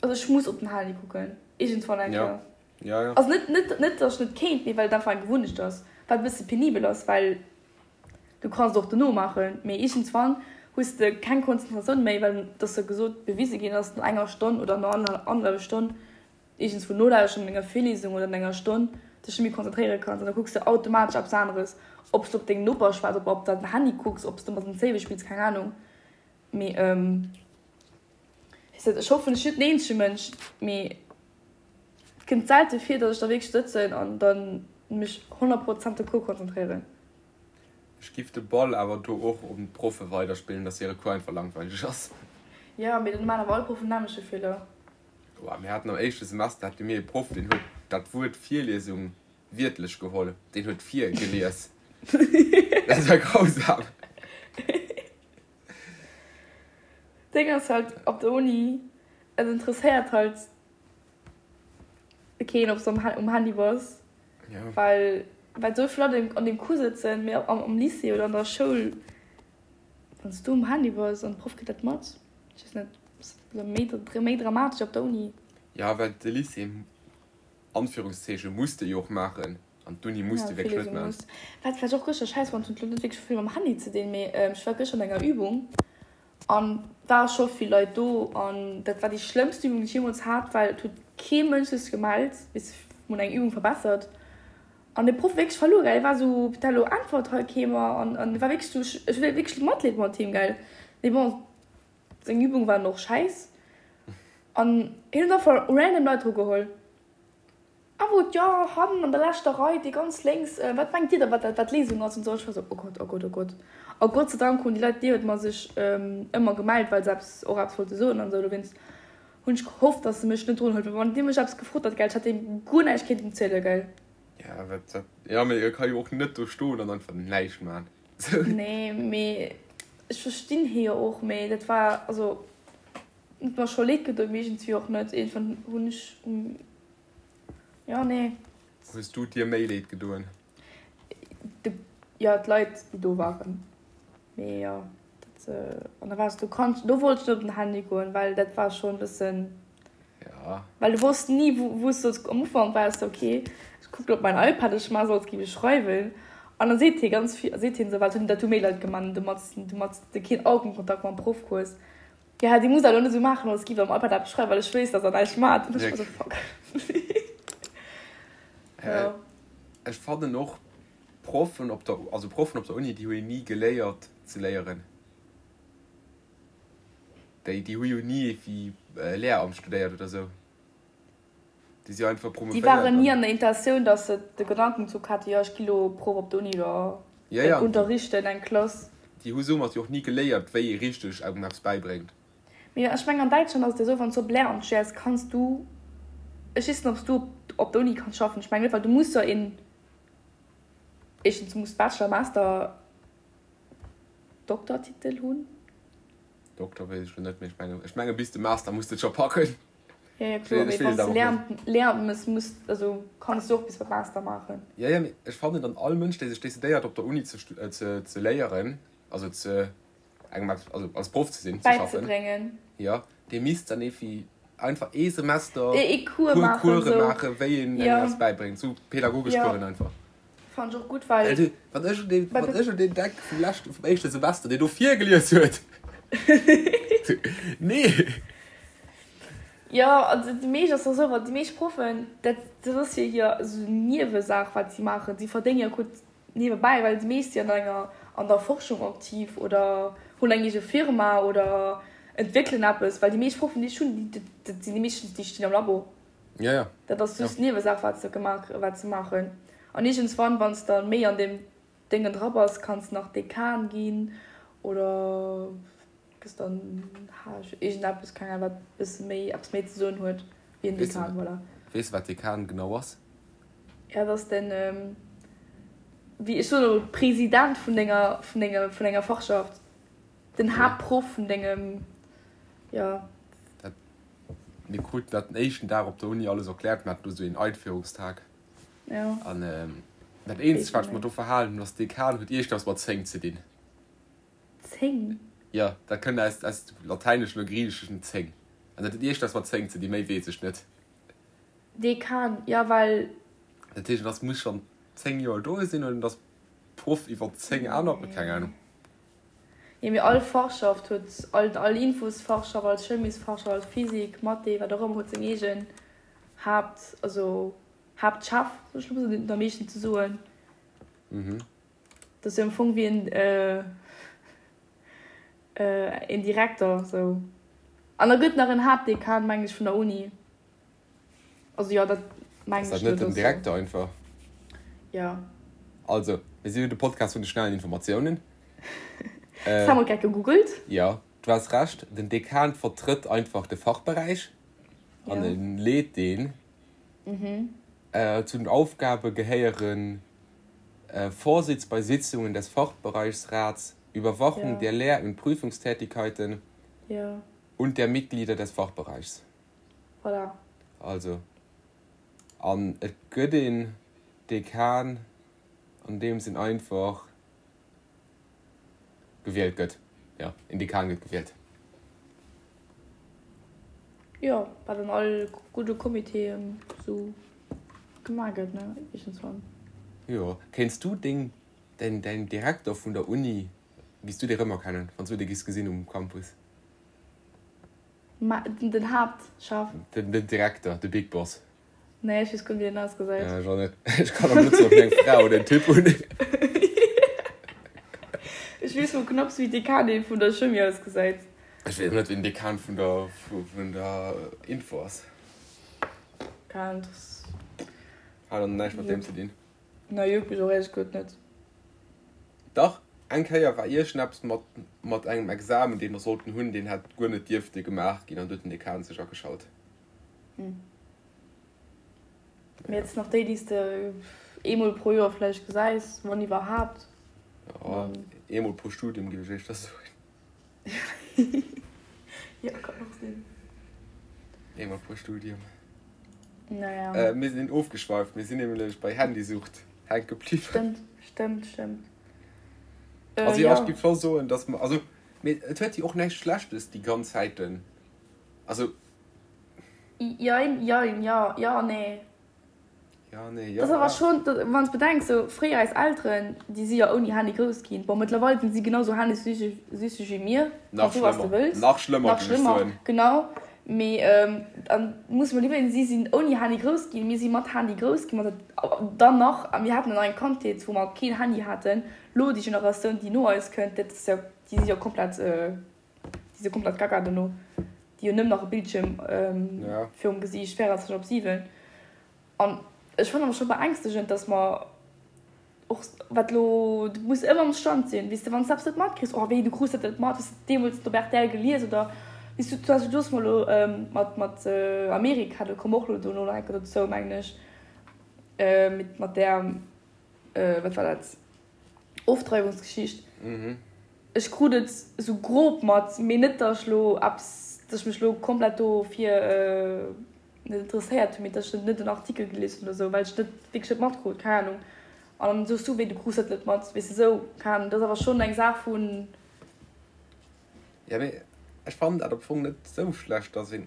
Also ech muss op den Handy kucken, iergendzwann eng Kéier. Ja, ja. Also net, net, net dass ech net kéint, mee well et einfach eng Gewunnecht ass, wat e bësse penibel ass, well du kanns et och dono maachen, mee iergendzwann hues de keng Konzentratioun méi, well et ass jo gesot, bewise ginn, dass no enger Stonn oder no annerhallwer Stonn iergendswou nolauschteren an enger Virliesung oder an enger Stonn dech net méi konzentréiere kanns an da kucks de automatesch eppes aneres, ob s de op deng Noper schwätz, ob op däin Handy kucks, ob s de mat den Zéiwe spills, keng Anung, mee ech hoffen, ech sinn net den eenzege Mënsch, mee. Et kënnt selte vir, dass ech da wierklech sëtzen an dann mech 100 Prozent op de Cours konzentréieren. Ech giff de Ball awer do och un d'Proffe weiderspillen, dass hire Cours einfach langweileg ass. Jo, mee dann maan awer all Proffen den nämmleche Feeler. Boah, mir haten am éischte Semester hate mir ee Proff, deen huet dat Wuert Virliesung wiertlech geholl. Deen huet virgelies. Dat war grausam. D'Déng ass halt op der Uni, et interesséiert halt keen ob s de um Handy bass, well well esou vill Leit an deem Cours sëtzen, mee am Lycée oder an der Schoul, wann s du um Handy bass an de Proff kritt dat mat, ech weess net, ass dat méi dramatesch op der Uni. Jo, well de Lycée, Anführungszeechen, muss de jo och maachen an d'Uni muss de wierklech net maachen. Wat vläicht och gëschter schäiss war, huet lo net wierklech vill mam Handy ze dinn, mee ech war gëschter an enger Übung An ware scho vill Leit do an dat war déi schlëmmst Übung déi ech jeemools hat, well et huet kee Mënsch sech gemellt, weess de, mir hunn eng Übung verbessert an de Proff wierklech verluer, gell, hie war esou, putain elo äntwert hei kee mer an an war wierklech esou, ech hu wierklech Matleed mat him, gell, mee bon, seng Übung waren och schäiss an hien huet einfach random Leit dru geholl. A wou jo, hannen an der leschter Rei, déi ganz lénks, wat mengt Dir da, wat dat, wat d'Léisung ass? An esou. Ech war esou, Oh Gott, oh Gott, oh Gott. A Gott sei Dank hunn déi Leit niewent mer sech ëmmer gemellt, well se eppes, och eppes wollte soen an esou. Dowéinst hunn ech gehofft, dass se mech net drun huet, well wann dee mech eppes gefrot hätt, gell, ech hätt deem guer näischt kéinten zielen, gell. Ja, wat, wat, jo, mee e ka jo och net do stoen an einfach näischt man. Nee, mee ech verstinn hie jo och, mee dat war, also, huet mer scho leed gedoen, mee iergendwéi och net. Iergendwann hunn ech. Jo, nee. Hues du dir méi leed gedoen? De, jo, d'Leit, déi do waren. Mee jo, dat, an da waars du kanns, do wollt ech net op den Handy goen, well dat war schonn e bëssen. Ja. Well du wosst ni, wou, wou s du solls, am Ufank war es ok, ech kucken op mäin iPad, ech maache sou, als géif ech schreiwen. An da seet hie ganz vill, seet hien esou, well dat hu méi Leit gemaach, domat, domat s de keen Augenkontakt mam Proff hues. Ja, déi muss dat elo net esou maachen, als giff am iPad eppes schreiwen, well ech weess, dass der näischt maacht. An ech war sou, fuck. Ja. Ech fannen och Proffen op der, also Proffen op der Uni, déi hu jo ni geléiert ze léieren. Déi, déi hu jo ni wéi Lehramt studéiert oder sou. Déi si einfach Déi promovéiert waren ni an. an der Intentioun, dass se de Gedankenzuch haten, jo, ech gi lo Proff op der Uni oder Ja, ja, an déi, unterrichten eng Klass. déi hu soumat jo och ni geléiert, wéi ee richteg engem eppes bäibréngt. Mee ech mengen an Däitschland ass et jo esou, wann s du op Lehramt studéiers, kanns du, ech weess net, ob s du op der Uni kanns schaffen, ech mengen net, well du muss jo een, éischtens du muss Bachelor, Master, Doktortitel hunn. Doktor weess ech lo net, mee ech mengen, ech menge bis de Master muss de et scho packen. Ja, ja, kloer, mee wann s de Lehramt, Lehramt mëss, muss, also kanns du och bis beim Master maachen. Ja, ja, mee ech fannen dann all Mënsch, dee sech decidéiert op der Uni ze, ze, ze léieren, also ze engem eppes, also als Proff ze sinn, ze schaffen, Bäizebréngen. jo, dee misst dann evi einfach ee Semester Ee Cours puer maachen, Course sou. maachen, wéi een engem Ja. eppes bäibréngt, sou pädagogesch Ja. Coursen einfach. Fannen ech och gutt, well. Well wann ech un deen, wann ech un deen denk vum leschten, vum éischte Semester, deen do virgelies huet. Nee! Jo, also déi meescht ass och esou, well déi meescht Proffen, dat, dat ass jo hir esou Niewesaach, wat si maachen. Si verdénge jo gutt niewebäi, well déi meescht si an enger, an der Forschung aktiv oder hunn eng eege Firma oder entwéckelen eppes. Well déi meescht Proffen, déi ech hunn, déi, dat sinn déi meeschtens, déi stinn am Labo. Ja, ja. Dat ass just Niewesaach, wat se gemaach, wat se maachen. An iergendswann, wann s de méi an deem Déngen dra bass, kanns nach Dekan ginn oder gëss dann H iergendeppes, keng Ahnung, wat bësse méi, eppes méi ze soen huet wéi en Weess Dekan, voilà. Weess de, wat Dekan genau ass? Ja, dat ass den. wéi ech soen elo President vun denger, vun denger, vun enger Fachschaft, den Haaptproff vun dengem, jo. Dat, mir kruten dat den éischten Dag op der Uni alles erkläert, mir haten do esou een Einführungstag. Jo. An dat eenzegt, wat ech mer do verhalen hunn, ass, Dekan huet iergendwas mat 10 ze dinn. 10? Jo, dat kënnt aus, aus dem Latäineschen oder Griicheschen 10. An dat huet iergendwas mat 10 ze dinn, méi weess ech net. Dekan, jo, well. Dat heescht, en ass, muss schonn 10 Joer do sinn oder en ass Proff iwwer 10 aner, keng Ahnung. Jo, mee all Fachschaft huet, all, all Infosfachschaft, all Chemiesfachschaft, all Physik, Mathé, wat och ëmmer, huet seng eegen Haapt, also Haaptchef, soll ech elo mol soen, deen huet am meeschten ze soen. Mhm. Dat ass jo am Fong wéi en, een Direkter, sou. An da gëtt nach en Haaptdekan, mengen ech, vun der Uni. Also jo, dat mengen ech. Ass dat net den Direkter einfach? Jo. Also, mir si jo de Podcast vun de schnellen Informatiounen. Das haben wir grad gegoogelt. Jo, du has Recht, den Dekan vertrëtt einfach de Fachberäich an e leet deen. Zu den Aufgabe gehéieren, Vorsitz bei Sitzungen des Fachbereichsrats, Überwachung der Lehr und Prüfungstätigkeiten und der Mitglieder des Fachbereichs. Voilà. Also, an et gëtt een Dekan, an deem sinn einfach gewielt gëtt. Jo, een Dekan gëtt gewielt. Jo, wat an all gudde Comitéen esou gemaach gëtt, ne, iergendswann. Jo. Kéints du deng, däin, däin Direkter vun der Uni, giss du dee rëmerkennen, wann s du dee giss gesinn um Campus? Ma den Haaptchef. Den Direkter, de Big Boss. Nee, ech weess guer net wéi den ausgesäit. Ja, ech och net. Ech kann och net soen, ob hien eng Fra oder en Typ hunn. Ech weess mol knapps wéi d'Dekanin vun der Chimie ausgesäit. Ech weess och net wéi den Dekan vun der vun der Info ass. Keng Ahnung, das. Hat och näischt mat deem ze dinn. Nee, juckt mech och éierlech gesot net. Dach, eng Kéier war iergendeppes mat mat engem Examen, dee mer sollten hunn, deen hätt guer net dierfte gemaach ginn an du huet den Dekan sech ageschalt. Hm. Mee et sinn nach déi, déi s de eemol pro Joer vläicht gesäis, wann iwwerhaapt. Jo, eemol pro Studium, géif ech éischter soen. Jo, kann och sinn. Eemol pro Studium. Naja. Mir sinn ofgeschweift, mir sinn nämlech bei Handysucht hänke bliwwen. Stëmmt, stëmmt, stëmmt. Also jo, ech géif scho soen, dass mer, also, mee et huet jo och näischt Schlechtes, déi ganz Zäiten, also. Jein, jein, jo, jo, nee. Ja, nee, jo. Dat ass awer schon, wann s bedenks, sou fréier eis Elteren, déi si jo ouni Handy grouss ginn. Bon, mëttlerweil sinn si genau sou handysüchteg wéi mir, Nach kanns soe wat s de schlëmmer, wëlls. nach schlëmmer, Nach géif ech schlëmmer, soen. genau. Mee dann muss mer iwwerleeën, si sinn ouni Handy grouss ginn, mir si mat Handy grouss ginn, mat dann nach, a mir haten dann nach eng Kandheet, wou mer keen Handy haten. Lo déi Generatioun, déi no eis kënnt, dat ass jo, déi si jo komplett. Déi si komplett gaga dono. Déi hunn nëmmen nach e Bildschierm virum Gesiicht 24 op 7. An ech fannen awer scho beängstegend, dass mer och wat elo, du muss ëmmer am Stand sinn, weess de, wann s de eppes net matkriss, oh wéi, du krus dat net mat, hues de deemools op rtl gelies oder weess du, zum Beispill du hues mer elo mat mat Amerika, do komme mer och elo dono nach eng Kéier dozou, mengen ech, mat där, wat war dat? Ofdreiwungsgeschicht. Ech krut et sou grob mat, mee net datt ech lo eppes, datt ech mech lo komplett dofir net interesséiert hunn, mee datt ech net en Artikel gelies hunn oder sou, well ech net wierklech net matkrut, keng Ahnung. An dann soos du, wéi du krus dat net mat, weess de sou, keng Ahnung. Dat ass awer schonn eng Saach vun. Jo, mee ech fannen dat am Fong net sou schlecht, datt een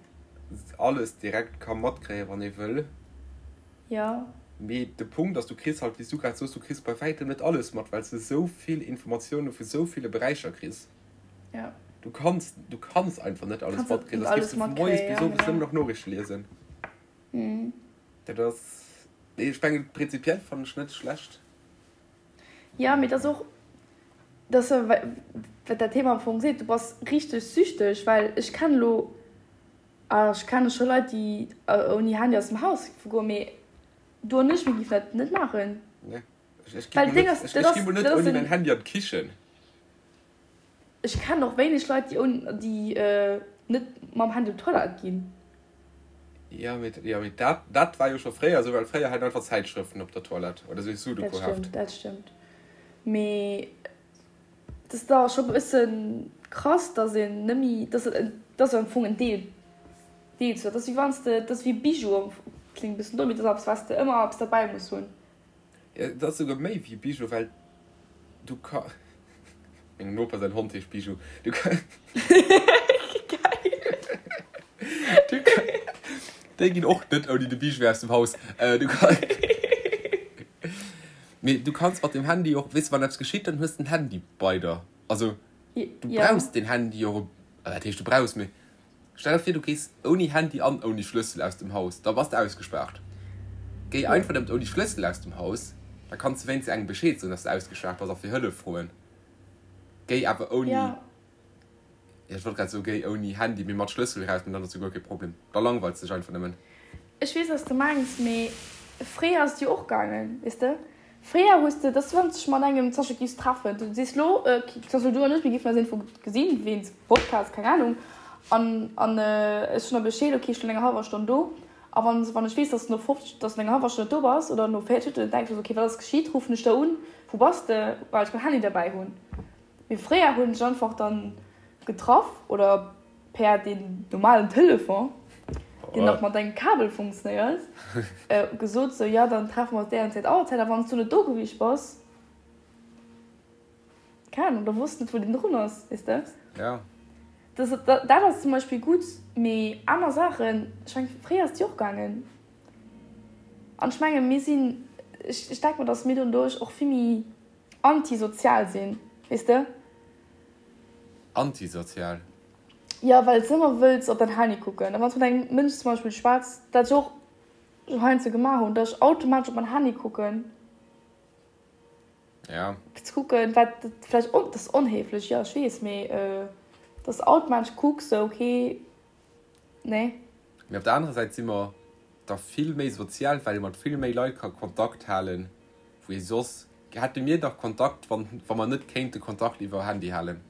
alles direkt ka matkréien, wann ee wëll. Jo. Mee de Punkt ass, du kriss halt, wéi s du grad soos, du kriss bei wäitem net alles mat, well s de sou vill Informatioune vu sou ville Beräicher kriss. Jo. Du kanns, du kanns einfach net alles Kanns net matkréien, soss alles géifs du vu moies matkréien, bis ja, owes genau. nëmmen nach Noriichte liesen. Mhm. Dat ass, nee, ech mengen, prinzipiell fannen ech net schlecht. Jo, mee et ass och, dat ass jo, wat dat Thema am Fong seet, du bass richteg süchteg, well ech kennen elo, a ech kenne scho Leit, déi ouni Handy aus dem Haus géife goen, mee du an ech, mir géifen dat net maachen. Nee, ech, ech gi Well mol d'Déng net, ass, ech, dat ech gi ass, mol net dat ass ouni en. mäin Handy an d'Kichen. Ech kennen och wéineg Leit, déi ouni, déi net mam Handy op d'Toilette ginn. Jo, mee, jo, mee dat, dat war jo scho fréier esou, well fréier hat een einfach Zäitschrëften op der Toilette oder esou Dat Sudoku-Heft. stëmmt, dat stëmmt. Mee et ass da scho bësse krass, dass een net méi, dass et, dass am Fong en Deel, Deel zu, dat ass wéi wann s de, dat ass wéi Bijou am Fong, kléngt e bëssen domm, mee dat ass eppes, wat s de ëmmer eppes derbäi muss hunn. Jo, dat ass souguer méi wéi Bijou, well du ka, mengem Noper säin Hond heescht Bijou, du ka, Geil! du ka, déi ginn och net ouni de Bijou aus dem Haus, du ka. Mee du kanns mat dem Handy och, weess de, wann eppes geschitt, dann hues de den Handy bei der. Also du brauchs den Handy och, wat heescht du brauchs, mee stell der vir, du gees ouni Handy an ouni Schlëssel aus dem Haus, da bass de ausgespaart. Géi einfach nëmmen ouni Schlëssel aus dem Haus, da kanns de wéinstens engem Bescheed soen, dass de ausgespaart bass a fir Hëllef froen. Géi awer ouni. Jo, ech wollt grad soen, géi ouni Handy, mee mat Schlëssel eraus, mee dann ass jo guer kee Problem. Da langweils de dech einfach nëmmen. Ech weess, wat s de mengs, mee fréier ass et jo och gaangen, weess de. Fréier hues de, dass wann s dech mat engem zum Beispill giffs treffen, du sees lo, zum Beispill du an ech, mir giffen eis iergendwou gesinn, wéinst Podcast, keng Ahnung, an an ech soen der Bescheed, ok, ech sinn an enger hallwer Stonn do. A wann wann ech weess, dass de no 50, dass du an enger hallwer Stonn net do bass oder no 40 Minutten, dann denke ech mer sou, ok, wat ass geschitt, ruffen ech der un, wou bass de, well ech mäin Handy derbäi hunn. Mee fréier hunn ech einfach dann getraff oder per deen normalen Telefon, deen nach mat engem Kabel funktionéiert, gesot sou, jo dann treffe mer eis déi an Zäit Auerzäit. A wann s du net do gewiescht bass, keng Ahnung, da wosst net wou deen drun ass, weess de. Ja. Dat, dat ass zum Beispill gutt, mee aner Saachen, ech mengen fréier ass et jo och gaangen. An ech menge mir sinn, ech, ech denke mer, datt mir doduerch och vill méi Antisozial sinn, weess de? Antisozial? Jo, well s de ëmmer wëlls op däin Handy kucken. A wann s mat engem Mënsch zum Beispill schwätz, dat ech och heiansdo gemaach hunn, datt ech automatesch op mäin Handy kucken. Ja. Fir ze kucken, wat vläicht, dat ass onhéiflech, jo, ech weess, mee datt s de automatesch kucks, sou, okay, nee. Mee op der anerer Säit si mer da vill méi sozial, well ee mat vill méi Leit ka Kontakt halen, wou ee soss. Hätte mir dach Kontakt, wann wa mer net kéinte Kontakt iwwer Handy halen?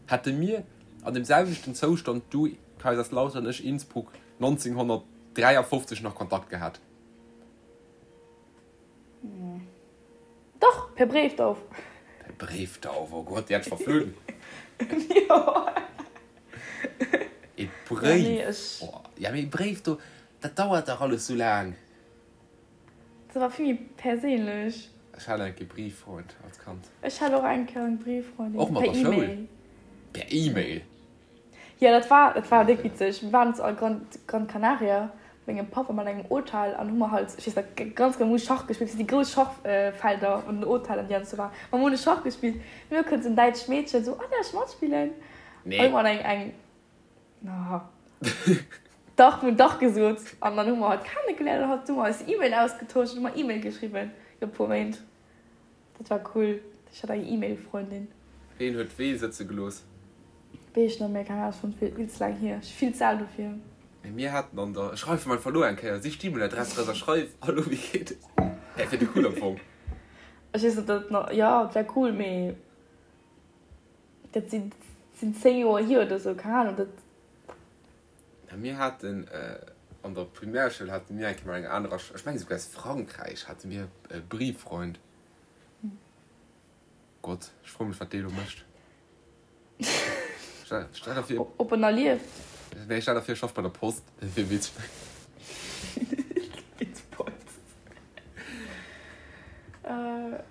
Hätte mir an dem selwechten Zoustand, du Kaiserslautern, ech Innsbruck, 1953 nach Kontakt gehat? Dach, per Bréifdauf. Per Bréifdauf, oh Gott, déi hätt ech verflunn. Jo. E Bréif, oh, ja mee e Bréif, do, dat dauert dach alles sou laang. Dat war vill méi perséinlech. Ech hat eng Kéier Brieffreund als Kand. Ech hat och eng Kéier eng Brieffreundin. Och mat der Schoul? Per E-Mail? Jo, dat war, dat war déck witzeg. Mir waren zu Gran, Gran Canaria mat mengem Papp a mat engem Hotel an hu mer halt, ech weess nach ganz genau, mir hu Schach gespillt, déi grouss Schachfelder an den Hotellen, déi an sou waren. Mer hunn Schach gespillt. Mir kënnt sou en däitscht Meedchen sou, Oh, däerf ech matspillen? Nee. An hu mer eng, eng. Dach, mir hunn dach gesot. An dann hu mer hatt kennegeléiert an hatt hu mer eis E-Mail ausgetosch an hu mer E-Mail geschriwwen iwwer e puer Méint. Dat war cool. Ech hat eng E-Mail-Frëndin. Ween huet wee sëtze gelooss? Weess ech net méi, keng Ahnung, ass schonn vill ze laang hier. Ech si vill ze al dofir. Mee mir haten an der, ech schreiwen einfach elo eng Kéier, sich d'E-Mail-Adress eraus a schreif, Hallo, wéi geet et? Hä, wier de cool am Fong. Ech weess net, ob dat nach, jo, et wär cool, mee. Dat sinn 10 Joer hier oder sou, keng Ahnung. Dat. Na mir haten an der Primärschoul hate mir eng Kéier mat enger anerer, ech mengen esouguer aus Frankräich, hate mir e Brieffreund. Gott, ech froe mech wat dee elo mécht. Stell der vir. Ob en nach lieft? Nee, stell der vir e schafft bei der Post, dat wier witzeg.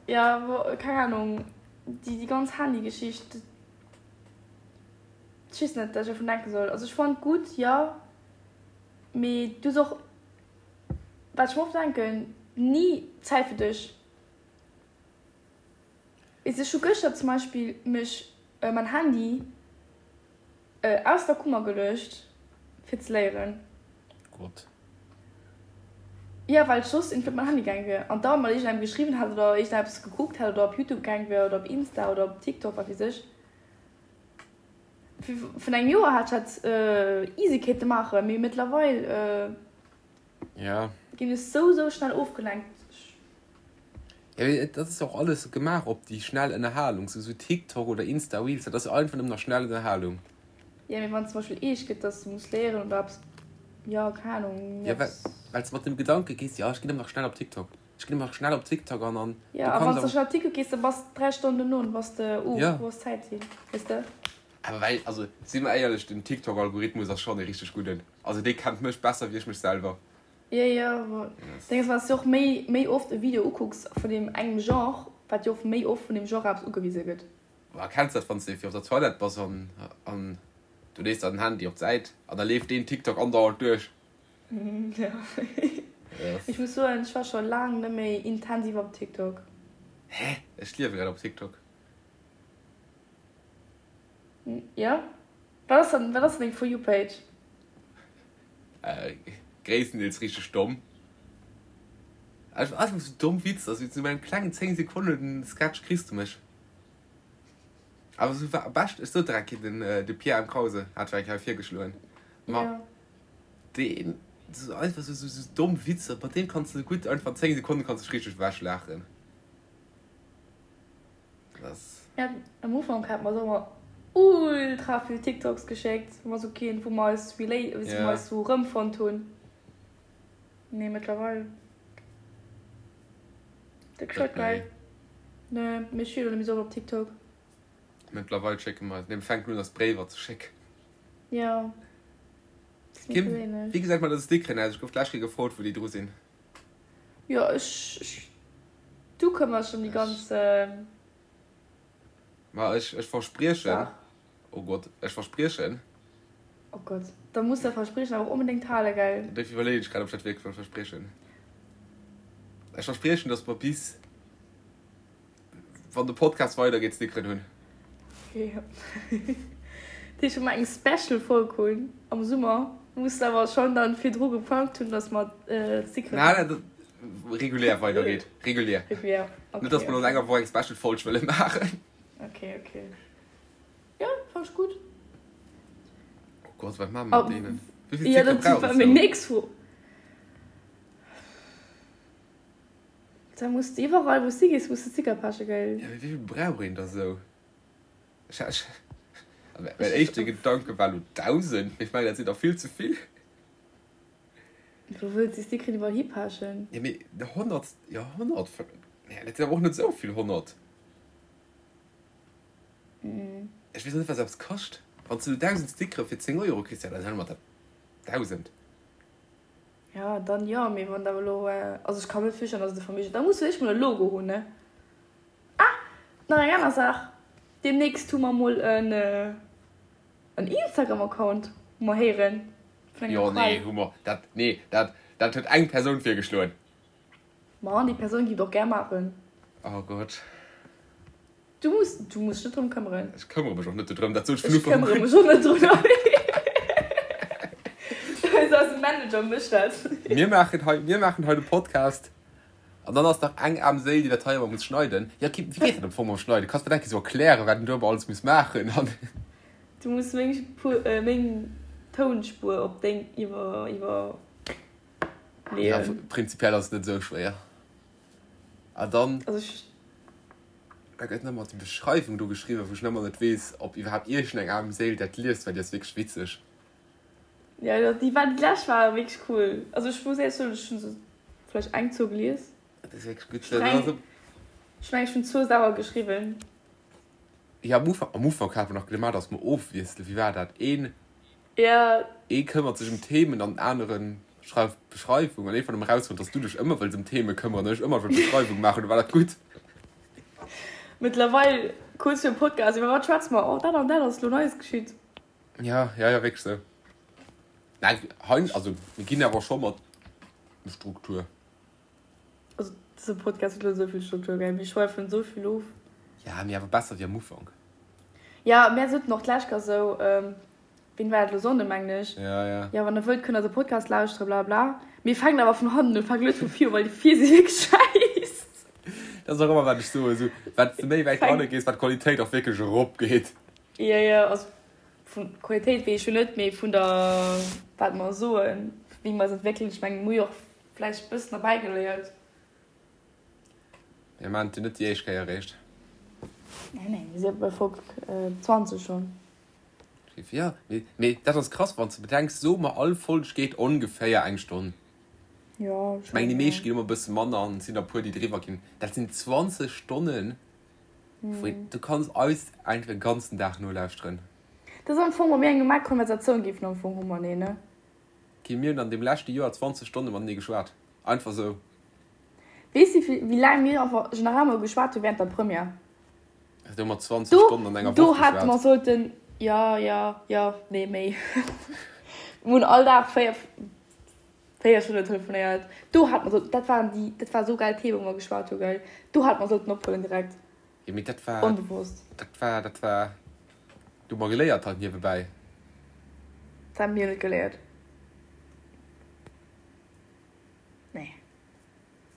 Jo, keng Ahnung. Déi ganz Handy-Geschicht, ech weess net, wat ech dovun denke soll. Also ech fannen et gutt, jo, mee du hues och, wat ech mer oft denken, ni Zäit fir dech. Weess de, ech hu gëschter zum Beispill mech mäin Handy Aus der Kummer geluecht fir ze léieren. Gott. Jo, well ech soss iergendwéi op mäin Handy gaang wier an da mat iergendengem geschriwwen hätt oder iergendeppes gekuckt hätt oder op Youtube gaang wier oder op Insta oder op TikTok, wat weess ech. Vun engem Joer hätt ech dat easy kéinte maachen, mee mëttlerweil. Ja. Ginn ech sou sou schnell ofgelenkt. Ja, mee dat ass jo och alles gemaach op déi schnell Ënnerhalung, sou sou TikTok oder Insta Reels, dat ass jo einfach nëmmen nach schnell Ënnerhalung. Ja, mee wann zum Beispill eescht gëtt, dass du muss léieren oder eppes, jo, keng Ahnung, Ja, well, well s de mat dem Gedanke gees, jo, ech ginn nëmmen nach schnell op TikTok. Ech ginn ëmmer schnell op TikTok an an Jo, a wann s de schnell op TikTok gees, da bass 3 Stonnen dono an bass de, uh, wou ass d'Zäit hin, weess de? Awer well, also si mer éierlech, den TikTok-Algorithmus ass schonn e richteg gudden. Also dee kennt mech besser wéi ech mech selwer. Jo, jo, ma Ding ass, wann s de och méi, méi oft e Video ukucks vun deem engem Genre, wat jo och méi oft vun deem Genre eppes ugewise gëtt. Ma kenns dat, wann s de fir op der Toilette bass an an du lees dann den Handy op d'Säit an da leeft deen TikTok andauernd duerch? Jo. Ech muss soen, ech war scho laang net méi intensiv op TikTok. Hä? Ech liewe grad op TikTok. Jo? Wat ass dann, wat ass dann deng For You Page? Gréisstendeels richteg domm. Einfach sou domm Witzer, sou zu mengem klengen 10 Sekonnen Sketch kriss du mech. Awer sou war bescht, ech sot der eng Kéier, den de Pierre M. Krause hat war eng Kéier virgeschloen. Ma Ja. deen sou einfach sou sou domm Witzer, mat deem kanns du gutt einfach 10 Sekonnen kanns dech richteg ewech laachen. Das. Ja, am Ufank hat mer ëmmer ultra vill TikToks geschéckt, wou mer sou keen, wou mer eis relate, wou mer eis sou erëmfonnt hunn. Nee, mëttlerweil. Dat gescheit geil. Nee, mee ech wier elo net méi sou oft op TikTok. Mëttlerweil schécke mer eis, nee, mir fänken un eis Bréiwer ze schécken. Ja. Kim, wéi gesäit mat eise Stickeren aus? Ech gouf d'lescht Kéier gefrot, wou déi dru sinn. Jo, ech, ech, du këmmers dech ëm déi ganz. Ma ech, ech verspriechen, oh Gott, ech verspriechen. Oh Gott, da muss dat Verspriechen awer och onbedéngt halen, gell? Dofir iwwerleeën ech grad, ob ech dat wierklech wëll verspriechen. Ech verspriechen, dass mer bis. Wann de Podcast weider geet Stickeren hunn. Okay. Dat heescht, wa mer eng Special Folg hunn am Summer, muss de awer schonn dann virdru geplangt hunn, dass mer d'Stickeren hunn. Nein, nein, regulär weider geet. Regulär. Regulär, okay. Net, dass mer an enger Woch eng Special Folg wëlle maachen. Okay, okay. Jo, fannen ech gutt. Oh Gott, wat maache mer mat deenen? Wéi vill Stickere brauch et? Ja, dat war meng nächst Fro. Da muss de iwwerall wou s de gees muss de Sticker pechen gell? Ja mee wéivill brauch een da sou? Ech ech mäin éischte Gedanke war lo 1000, mee ech mengen dat sinn der vill ze vill. Wou wëlls de Stickeren iwwerall hipechen? Ja mee 100, jo 100, nee dat sinn awer och net sou vill 100. Ech weess och net wat eppes kascht. Wann s de lo 1000 Stickere fir 10 Euro kriss, ja dann huele mer der 1000. Ja, dann jo, mee wann der elo, also ech ka mir net virstellen, dass et e Verméigen, da muss ech mol e Logo hunn, ne? Ah, nach eng aner Saach, Deemnächst hu mer mol en en Instagram-Account, hu mer héieren vun enger Jo, nee, hu mer dat, nee, dat, dat huet eng Persoun virgeschloen. Ma déi Persoun géif et och gär maachen. Oh Gott. Du muss, du muss dech net drëm këmmeren. Ech këmmere mech och net dodrëm, dat sot ech vun Ufank un. Ech këmmere mech och net drun. Eise Manager mécht dat. Mir maachen hei, mir maachen hei de Podcast an dann ass nach eng aarm Séil, déi dat hei ëmmer muss schneiden. Jo, Kim, wéi geet dat am Fong mam Schneiden? Kanns de mir dat eng Kéier sou erklären, wat een do ëmmer alles muss maachen an. Du muss meng Spuer, meng Tounspuer op deng iwwer, iwwer leeën. Ja, prinzipiell ass et net esou schwéier. A dann. Also ech. Da gëtt nach ëmmer déi Beschreiwung do geschriwwen, wou ech nach ëmmer net weess, ob iwwerhaapt iergendeng aarm Séil dat liest, well déi ass wierklech witzeg. Jo, jo, déi war, déi lescht war wierklech cool. Also ech muss éierlech soen, ech hunn se vläicht eng, zwou gelies. Dat ass wierklech gutt. Dat ass. Ech mengen, ech hunn zwou selwer geschriwwen. Jo, am Ufank, am Ufank hate mer nach gemaach, datt mer ofwiesselen. Wéi war dat? Een. Ja. Ee këmmert sech ëm Themen an den aneren schreift d'Beschreiwung. An iergendwann hu mer erausfonnt, dass du dech ëmmer wëlls ëm Theme këmmeren an ech ëmmer wëll d'Beschreiwung maachen. Du war dat gutt. Mëttlerweil kuerz virum Podcast, iwwer wat schwätze mer? Oh, dat an dat ass elo Neies geschitt. Ja, ja, ja, wierklech sou. Nein, hein, also mir ginn awer scho mat Struktur. Also dëse Podcast huet elo esou vill Struktur, gell? Mir schweifen esou vill of. Ja, mee awer besser wéi am Ufank. Ja, mär soten och d'lescht Kéier esou, ween war dat elo, Sonnden mengen ech, Ja, ja. ja wann der wëllt kënnt der de Podcast lauschteren, bla bla. Mir fänken awer vun hannen un, fänken net vu vir u, well déi vir si wierklech schäiss. Dat ass och ëmmer wat ech soen, esou wat s de méi wäit hanne gees, wat d'Qualitéit och wierklech erop geet. Ja, ja, also vun Qualitéit weess ech jo net, mee vun der, wat mer soen, wéi mer eis entwéckelen, ech mengen, mir hu jo och Vläicht bëssen derbäi geléiert. Mir maan et jo net déi éischt Kéier eréischt. Nee, nee, mir si bei Folg 20 schonn. Jo, mee, mee dat ass krass, wann s de bedenks, soe mer all Folg geet ongeféier eng Stonn. Jo, Ech mengen déi meescht ginn ëmmer e bësse manner an et sinn der e puer déi driwwer ginn. Dat sinn 20 Stonnen, wou du kanns eis einfach e ganzen Dag nolauschteren. Dat ass am Fong, wa mir eng normal Konversatioun géifen am Fong hu mateneen, ne? Okay, mir hunn an deem leschte Joer 20 Stonne matenee geschwat. Einfach sou. Weess de, wéi laang mir einfach generell mol geschwat hu während der Première? Do hu mer 20 Stonnen an enger Do Woch hätte mer geschwat. sollten, jo, jo, jo, nee, méi. Mir hunn all Dag 4, 4 Stonnen telefonéiert. Do hätte mer sollten, dat waren déi, dat war esou geil Themen, wou mer geschwat hu, gell? Do hätte mer sollten ophuelen direkt. Jo, mee dat war, Onbewosst. dat war, dat war, do hu mer geléiert halt niewebäi. Dat hu mir net geléiert. Nee.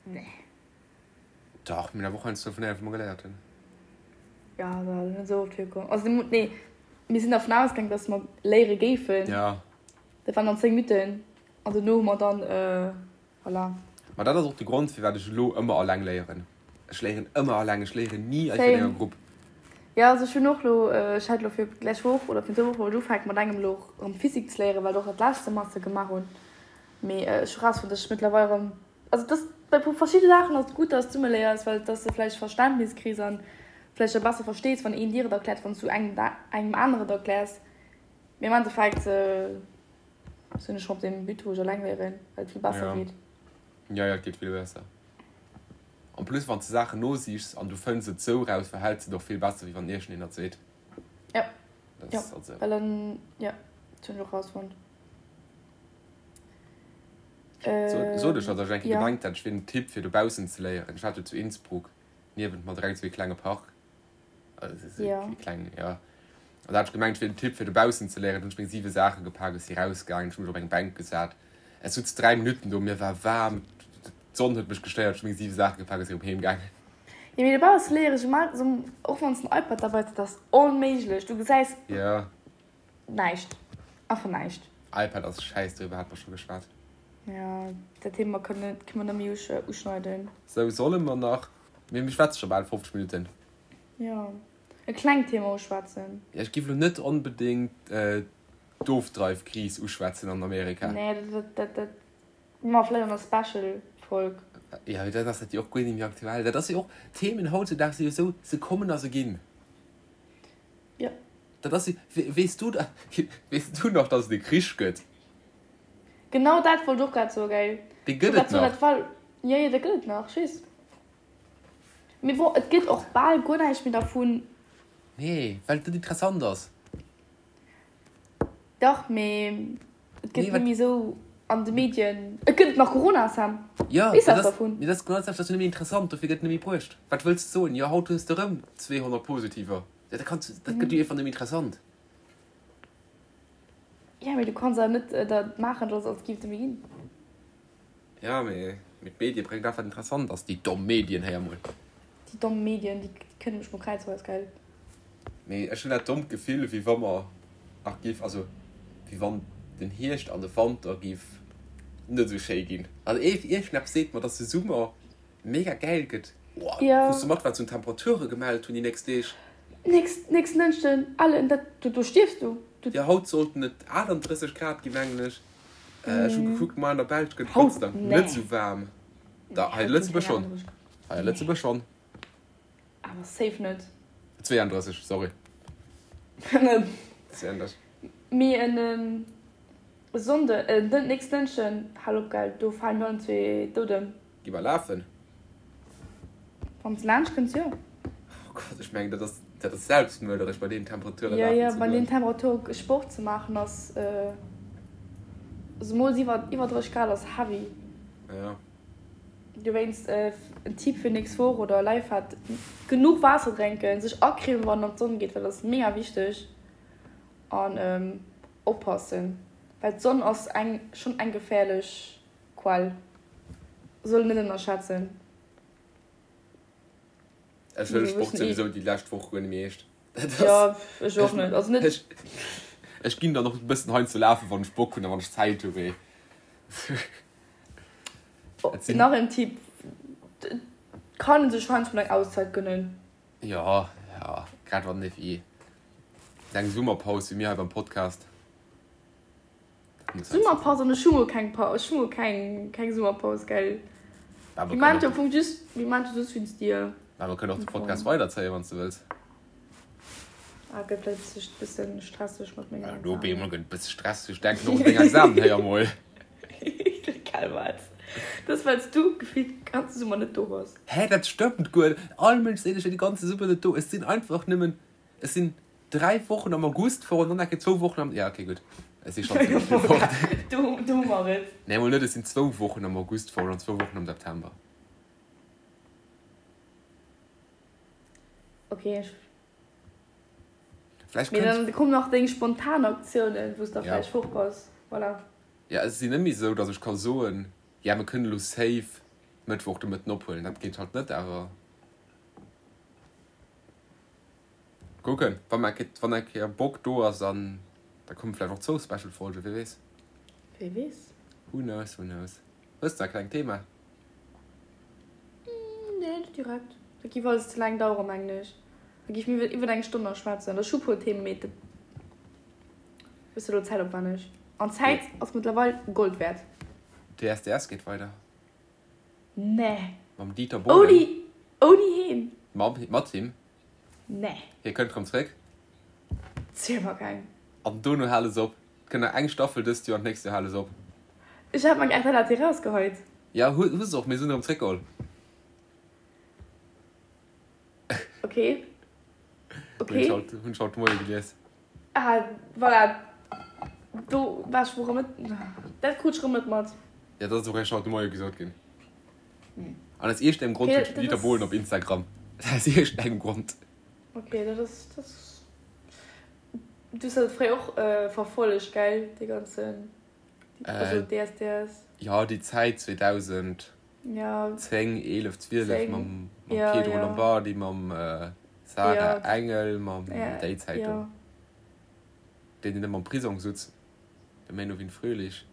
Nee. Dach, mir hunn awer och heiansdo telefonéiert, wou mer geléiert hunn. Jo, dat ass net esou oft virkomm. Also, nee, mir sinn dervun ausgaangen, dass mer léiere géifen. Ja. Dat waren dann 10 Minutten an dono hu mer dann, voilà. Ma dat ass och de Grond, firwat ech elo ëmmer alleng léieren. Ech léieren ëmmer alleng, ech léieren ni einfach an enger Grupp. Jo, also ech hunn och elo, ech hat elo fir d'lescht Woch oder virun zwou Woche wollt ech ufänken mat engem elo erëm Physik ze léieren, well ech och dat lescht Semester gemaach hunn. Mee ech hu rausfonnt, dass ech mëttlerweil erëm, also dass bei verschidde Saachen ass et gutt, dass du zesumme léiers, well dass de vläicht Verständnis kriss an vläicht da besser verstees, wann een dir et erkläert, wann s du engem engem aneren et erkläers. Mee am Endeffekt sinn ech schonn op deem But, wou ech eleng léieren, well et vill besser Ja. geet. Ja, ja, et geet vill besser. En plus, wann s de Saachen nosichs an du fënns et sou raus, verhäls de et och vill besser, wéi wann iergendeen dat seet. Ja, Dat ja, ass also. well dann, ja, dat hunn ech och rausfonnt. Sot ech, datt ech eng Kéier Ja. gemengt hätt, ech wier den Typ, fir dobaussen ze léieren. Ech hat jo zu Innsbruck niewent mer direkt esou ee klenge Park. Ja. Kleng, ja. An da hat ech gemengt, ech wier den Typ fir dobaussen ze léieren. Dunn hunn ech meng 7 Saache gepak, ech si rausgaangen, ech hu mech op eng Bänk gesat. Ech sutz 3 Minutten do, mir war waarm, d'Sonn huet mech gestéiert, ech hu meng 7 Saache gepak a si erëm heem gaangen. Jo, mee dobausse léiere ech ëmmer, och wann s de en iPad derbäi hues, dat ass onméiglech. Du gesäis Ja. näischt, einfach näischt. iPad ass schäiss, doriwwer hate mer scho geschwat. Jo, dat Thema kënne mer net méi uschneiden. Sou, solle mer nach, mir schwätze scho bal 50 Minutten. Jo, e klengt Thema uschwätzen. Jo, ech giff elo net onbedéngt d'Ofdreifkris uschwätzen an Amerika. Nee, dat, dat, dat ma vläicht an der Special-Folg. Jo, mee dann ass dat jo och guer net méi aktuell. Dat ass jo och, d'Themen hautzedaags si jo esou, se kommen a se ginn. Jo. Dat ass jo, weess du, weess du nach, dass et e Krich gëtt? Genau dat wollt ech och grad soen, gell. Dee gëtt et nach. Jo, jo, dee gëtt et nach, ech weess. Mee bon, et gëtt och bal guer näischt méi dervun. Nee, well et net interessant ass. Dach, mee et gëtt net méi esou an de Medien. Et gëtt et nach Corona, Sam. Jo, Weess dat eppes ass, dervun? mee dat ass genau dat selwecht, dat ass jo net méi interessant, dofir gëtt et net méi bruecht. Wat wëlls de soen? Jo, haut hues de erëm 200 Positiver. Jo, dat kanns, dat gëtt jo einfach net méi interessant. Jo, mee du kanns awer net dat maachen, dass als géif et net méi ginn. Ja, mee d'Medie bréngt dat wat interessant ass, déi domm Medien, héier mol. Déi domm Medien, déi kënne mech mol kräizweis, gell. Mee ech hunn dat dommt Gefill, wéi wa mer nach giff, also wéi wann den Hierscht an de Wanter giff net esou schéi ginn. Also iergendeppes seet mer, dass de Summer mega gäil gëtt. Oh, Ja. Krus du mat, wat se un Temperature gemellt hunn déi nächst Deeg? Nächst, nächsten Dënschden, Ellen, dat, do, do stierfs du. Du. Jo, haut sollten et 38 Grad ginn, mengen ech. Ech hu gekuckt, ma an der Belsch gëtt et Haut? Gott sei Dank Nee. net esou waarm. Da, Nee, hei haut ginn Lëtzebuerg keng schonn. 38 Grad. Hei a Nee. Lëtzebuerg schonn. Awer safe net. 32, sorry. 32. Mee en Sonnde, äh, den nächsten Dënschden, hal op, gell, do falen mir allen zwee dout ëm. Gi mer lafen? Wann s de laanscht kënns, jo. Oh Gott, ech mengen, dat ass, dat ass selbstmörderesch, bei deenen Temperature Jo, lafen jo, ze bei deenen goen. Temperature Sport ze maachen ass, zemools iwwer, iwwer 30 Grad ass heavy. Ja. Dowéinst en Tipp fir nächst Woch oder Lifehack, genuch Waasser drénken, sech acremen wann een an d'Sonn geet, well dat ass mega wichteg an oppassen, well d'Sonn ass eng, schonn eng geféierlech Quell, soll een net ënnerschätzen. Ech huele Sport souwisou déi lescht Woch guer net méi eescht. Jo, ech och net. Also net. Ech ginn dann och e bëssen heiansdo lafen, wann ech Bock hunn a wann ech Zäit hu, mee. Nach en Tipp, Et kann ee sech heiansdo mol eng Auszäit gënnen. Jo, jo, grad wann ee wéi eng Summerpaus wéi mir hei beim Podcast. Summerpaus an ech hu mol keng Paus, ech hu mol keng keng Summerpaus, gell. Mir maachen jo am Fong just, mir maachen jo just wéinst dir. Mä mer kënnen och de Podcast weiderzéien, wann s de wëlls. Ah, gëtt vläicht e bëssen stresseg mat mengen Examen. Op eemol gëtt et bësse stresseg, denk och un deng Examen, héier mol. Gell wat? Dat ass well s du gefillt de ganze Summer net do bass. Hä, dat stëmmt guer net. All Mënsch seet, ech wier de ganze Summer net do. Ech sinn einfach nëmmen, ech sinn 3 Wochen am August fort an dann enke zwou Wochen am, ja okay gutt, ech si schonn zimmlech vill fort. Do hu mer et. Nee, mol net, ech sinn zwou Wochen am August fort an zwou Wochen am September. Ok, ech. Vläicht Mee dann kommen nach deng spontan Aktiounen, wou s da vläicht fort bass. Voilà. Ja, et ass net méi esou, datt ech ka soen, ja mir kënnen elo safe Mëttwoch de Mëtten ophuelen. Dat geet halt net, awer kucken, wa mer eng wann eng Kéier Bock do ass, an da komme vläicht och zwou Special Folgen, wie weess. Wie weess. Who knows, who knows. Hues de e klengt Thema? Nee, net direkt. Dat giff alles ze laang daueren, mengen ech. Da giff mir iwwer eng Stonn nach schwätzen. Ech hu puer Themen, mee dat bësse lo zäitopwänneg. An Zäit ass mëttlerweil Gold wäert. DSDS geet weider. Nee. Mam Dieter Bohlen. Ouni, ouni heen. Mam, mat him. Nee. Hie kënnt rëm zréck. Ziel mer keng. An dono hale se op. Et kënnt nach eng Staffel dëst Joer an d'nächst Joer hale se op. Ech hat meng RTL hat déi rausgeheit. Ja hu hu se och, mee se hunn erëm zréckgeholl. Ok. Ok. Hunn ech haut, hunn ech haut de Moie gelies. Ah, voilà. Do war ech erëm net, dat krut ech erëm net mat. Ja, dat ass och eréischt haut de Moie gesot ginn. An aus iergendengem Grond hunn ech den Dieter Bohlen op Instagram. Aus iergendengem Grond. Ok, dat ass, dat ass. Du hues dat fréier och verfollegt, gell, dee ganzen, also DSDS? Jo, déi Zäit 2010, 11, 12 mam Pietro Lombardi, mam Sarah Engel, mam déi Zäit do. Deen, deen ëmmer am Prisong sutz, de Menowin Fröhlich.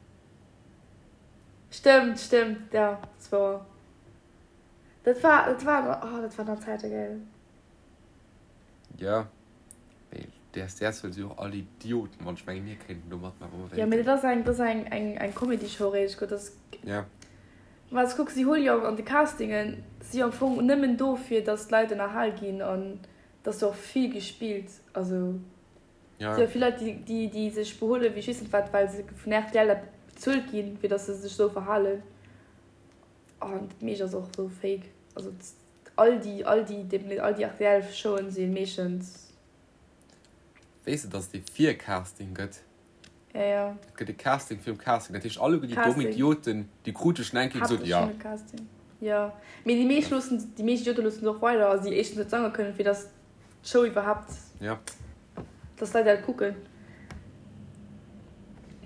Stëmmt, stëmmt, jo, dat ass wouer. Dat war, dat war, oh, dat waren nach Zäite, gell. Jo, mee DSDS well si och all Idioten, wann ech mengen mir kéinten do matmaachen wa mer Jo, mee dat ass eng, dat ass eng, eng, eng Comedy-Show réischt, gutt, dat ass. Ja. Well s kuck, si huele jo an de Castingen, si jo am Fong nëmmen do fir datt d'Leit ënnerhal ginn an et ass jo och vill gespillt, also Ja. si jo vill Leit, déi, déi, déi sech behuele wéi ech weess net wat, well se vun rtl dat bezuelt ginn, fir datt se sech esou verhalen an dat meescht ass och esou fake, also. All déi, all déi, all déi rtl Showen si meeschtens. Weess de dass et ee Vircasting gëtt? Ja, ja. Et gëtt e Casting virum Casting. Dat heescht alleguer déi domm Idioten, déi krute schon eng Kéier gesot, ja. Casting. Ja, mee déi meescht loossen, déi meescht Idiote loossen se och weider, also déi éischtens net sange kënnen, fir dass d'Show iwwerhaapt. Ja. Dass d'Leit dat kucken.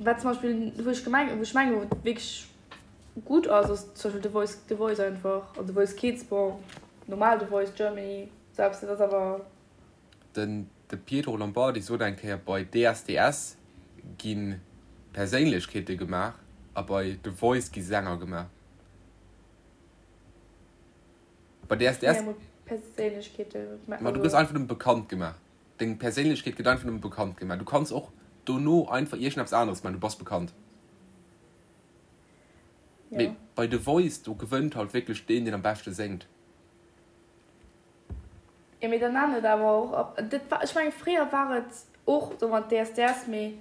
Wat zum Beispill, wou ech gemeng, wou ech mengen, wou et wierklech. Gutt ass, ass zum Beispill The Voice, The Voice einfach, an The Voice Kids, bon, normal The Voice Germany, sou eppes, dat ass awer. Den de Pietro Lombardi sot eng Kéier, bei DSDS gi Perséinlechkeete gemaach a bei The Voice gi Sänger gemaach. Bei DSDS. Perséinlechkeete. Ma du gëss einfach nëmme bekannt gemaach. Deng Perséinlechkeet gëtt einfach nëmme bekannt gemaach. Du kanns och dono einfach iergendeppes aneres maachen, du bass bekannt. Ja. Mee bei The Voice, do gewënnt halt wierklech deen, deen am beschte séngt. Jo, mee dann nennt et awer och op. Dat war, ech mengen, fréier war et och sou mat DSDS, mee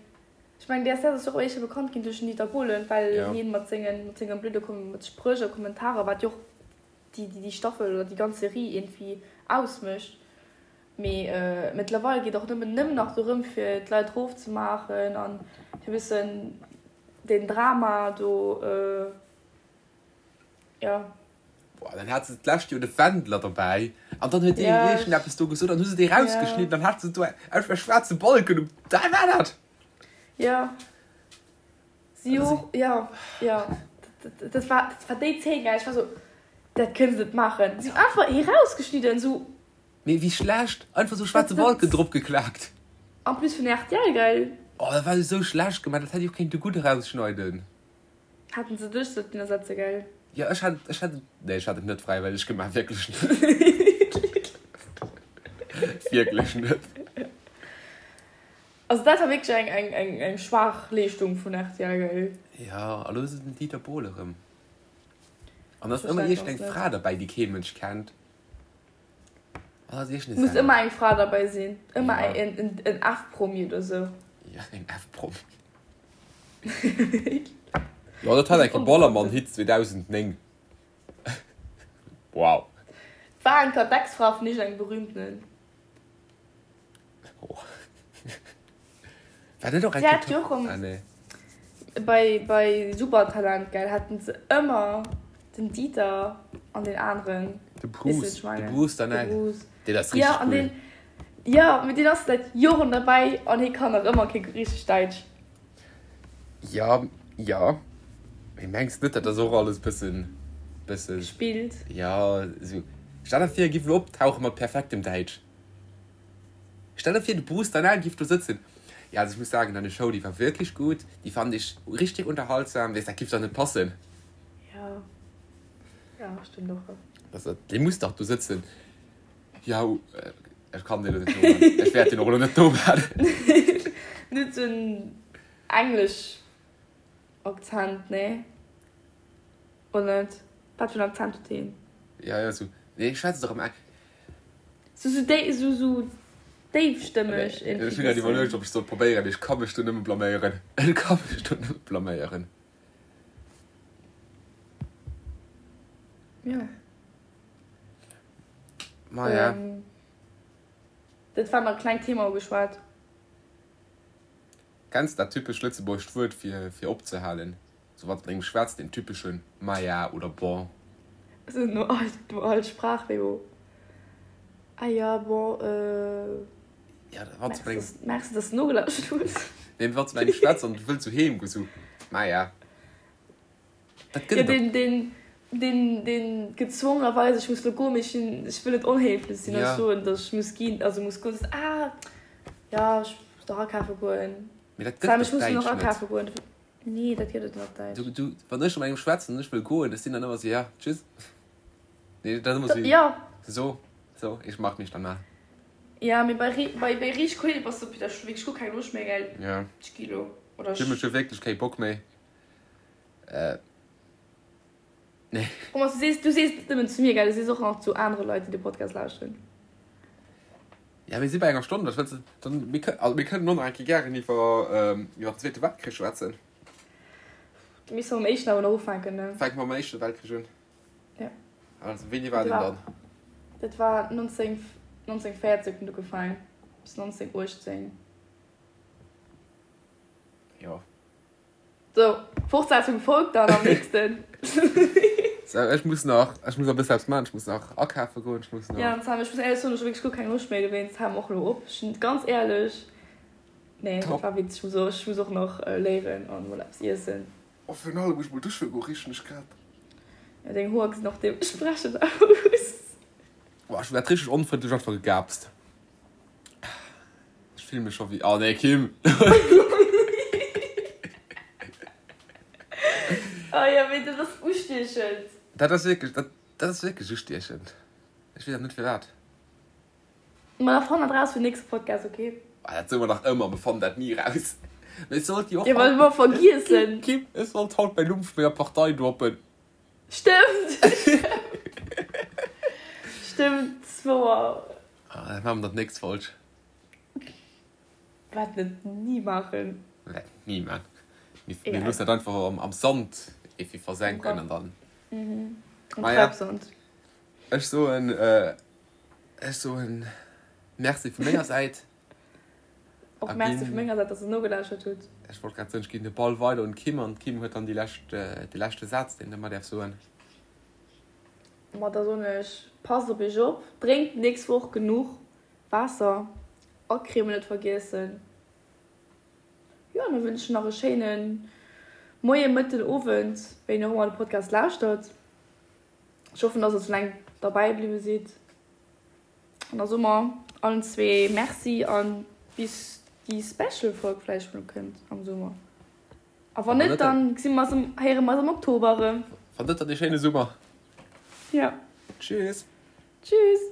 ech mengen, DSDS ass jo och éischter bekannt ginn duerch den Dieter Bohlen, well Ja. hien mat sengen, mat senge blöde Kom mat Spréch a Kommentarer, wat jo och déi, déi, déi Staffel oder déi ganz Serie iergendwéi ausmécht. Mee mëttlerweil geet och nëmmen nëmmen nach dorëm fir d'Leit rofzemaachen an fir e bëssen den Drama do, jo. Boah, dann hat se d'lescht Joer de Wendler dobäi an dann huet deen iergendeppes do gesot an hu se dee rausgeschnidden, dann hat se do einfach e schwaarze Balken um, dat war dat! Jo, si och, jo, jo, dat war, dat war déi Zeen, gell, ech war sou, dat kënne se net maachen, si hunn einfach hie rausgeschnidden, sou. Mee wéi schlecht! Einfach sou schwaarze Balken drop geklaakt. En plus vun rtl, gell? Oh dat war esou schlecht gemaach, dat hätt ee och kéinte gutt erausschneiden. Hätten se dech sollten ersetze, gell? Jo ech hätt ech hätt et, nee ech hätt et net fräiwëlleg gemaach, wierklech net. Wierklech net. Also dat war wierklech eng, eng, eng, eng schwaach Leeschtung vun rtl, gell? Ja, a lo ass et den Dieter Bohlen erëm. An da ass ëmmer iergend eng Fra derbäi, déi kee Mënsch kennt. An da ass iergend e Muss ëmmer eng Fra derbäi sinn. Ëmmer ja. en, en, en F-Promi oder sou. Ja, en F-Promi. Jo, dat hat eng Kéier Ballermann-Hit 2009. Wow. War eng Kéier d'Ex-Fra vun iergendengem berühmtenen. Oh. War net och eng Kéier. Ah, nee. Bei, bei Supertalent, gell, haten se ëmmer den Dieter an den aneren. De Bruce, de Bruce Danell. De Bruce. Deen ass richtig ja, cool. Den, ja, mee deen ass säit Joren derbäi an hie kann nach ëmmer kee richteg Däitsch. Ja, ja. Mee mengs net, dat ass och alles bëssen, bëssen. Gespillt. Ja, esou. Stell der vir, e giff elo optauche mat perfektem Däitsch. Stell der vir, de Bruce Danell giff do sëtzen. Ja, also ich muss sagen, deine Show, die war wirklich gut, die fand ich richtig unterhaltsam. Weess, dat giff dach net passen. Ja, ja, stëmmt och. Das, dee muss dach do sëtzen. Ja, ech kann deen elo net nomaachen. Ech wäert deen och elo net nomaachen. Net sou en englesch Akzent, nee? Oder net? Wat fir en Akzent huet deen? Ja, ja, sou. Nee, schwätzt dach am Eng. Sou, sou déi, sou, sou déifstëmmeg irgendwie. Ech hunn grad iwwerluecht, ob ech sollt probéieren, mee ech ka mech do nëmme blaméieren. Ech ka mech do nëmme blaméieren. Ja. Maja. Dat war nach e klengt Thema ugeschwat. Kenns dat typescht lëtzebuergescht Wuert fir fir opzehalen? Sou wann s mat engem schwätzt, deen typeschen Maja oder Bon. Sou no all no all Sprach wéi wo Ah ja, bon, euh. Ja, wann s mat engem. Merci, dass s de nogelauschtert hues. Nee, wann s mat engem schwätzt an du wëlls sou heem goen, sou Maja. Dat gëtt et op. Deen, deen, deen gezwongenerweis, ech muss lo goen, mee ech sinn, ech wëll net onhéiflech sinn a soen, datt ech muss ginn, also muss goen, soss, ah, jo, ech muss nach akafe goen. Mee dat gëtt et op Däitsch net. Goen. Nee, dat gëtt et net op Däitsch. Du, du, wann ech mat engem schwätzen an ech wëll goen, ech sinn dann ëmmer sou, ja, tschüss. Nee, dat ass ëmmer sou, ja. So, so, ich mach mich dann mal. Ja, mee bei, bei, bei riicht Kollege bass du, Peter, ech hu wierklech guer keng Loscht méi, gell? Ja. Ech gi lo, oder ech. Ech hu wierklech kee Bock méi. Äh, nee. Thomas, du sees, du sees net nëmmen zu mir, gell? Du sees och nach zu anere Leit, déi de Podcast lauschteren. Ja, mir si bei enger Stonn. Was wëlls du dann? Mir kënnen, also mir kënnen och nach eng Kéier gären iwwer, ähm, iwwer den Zweete Weltkrich schwätzen. Da misste mer mam éischten awer nach ufänken, ne? Fänke mer mam Éischte Weltkrich un. Ja. Also, wéini war deen dann? Dat war 19, 1914 huet en ugefaangen, bis 1918. Jo. Sou, Fortsetzung folgt dann am nächsten. So, ech muss nach, ech muss nach e bësse eppes maachen, ech muss nach akafe goen, ech muss nach. Ja, Sam, ech muss éierlech soen, ech hu wierklech guer keng Loscht méi, dowéinst hale mer och elo op. Ech sinn ganz éierlech, nee, dat war witzeg, ech muss och, ech muss och nach léieren an mol eppes iessen. Oh, virun allem muss ech mol dusche goen, richen ech grad. Ja, deng Hoer gesinn och deementsprechend aus. Boah, ech hu grad richteg onfrëndlech einfach gegaapst. Ech fillen mech scho wéi, oh nee Kim. Oh jo, mee dat ass ustiechend. Dat ass wierklech, dat, dat ass wierklech ustiechend. Ech weess awer net firwat. Ma da fann dat raus fir den nächste Podcast, ok? Ah, dat soe mer nach ëmmer, mer fannen dat ni raus. Mee ech sollt jo och. Jo, well mer vergiessen. Kim, Kim, ech sollt haut mäin Numm vu menger Partei droppen. Stëmmt! Stëmmt, ass wouer. Ah, dat maache mer dann d'nächst Folg. Wäerten et ni maachen. Wäerten et ni maachen. Mir, mir loossen dat einfach am, am Sand efi versenken an dann. Mhm. Am Maja. Treibsand. Ech soen, äh, ech soen Merci vu menger Säit. Och Merci vu menger Säit, dass der nogelauschtert hutt. Ech wollt grad soen, ech ginn de Ball weider un d'Kim an d'Kim huet dann déi lescht, de leschte Saz, deen de mer däerf soen. Ma da soen ech, passt op iech op, drénkt d'nächst Woch genuch Waasser, Acreme net vergiessen. Jo, an da wënsch ech nach e schéine Moien, Mëtten, Owend, wéini och ëmmer de Podcast lauschtert. Ech hoffen, dass der sou laang derbäi bliwwe sidd. An da soe mer allen zwee Merci an bis déi Special Folg vläicht mol kënnt am Summer. A wann net, dann gesi mer eis am, héiere mer eis am Oktober erëm. Wann net, dann ee schéine Summer. Ja. Tschüss. Tschüss.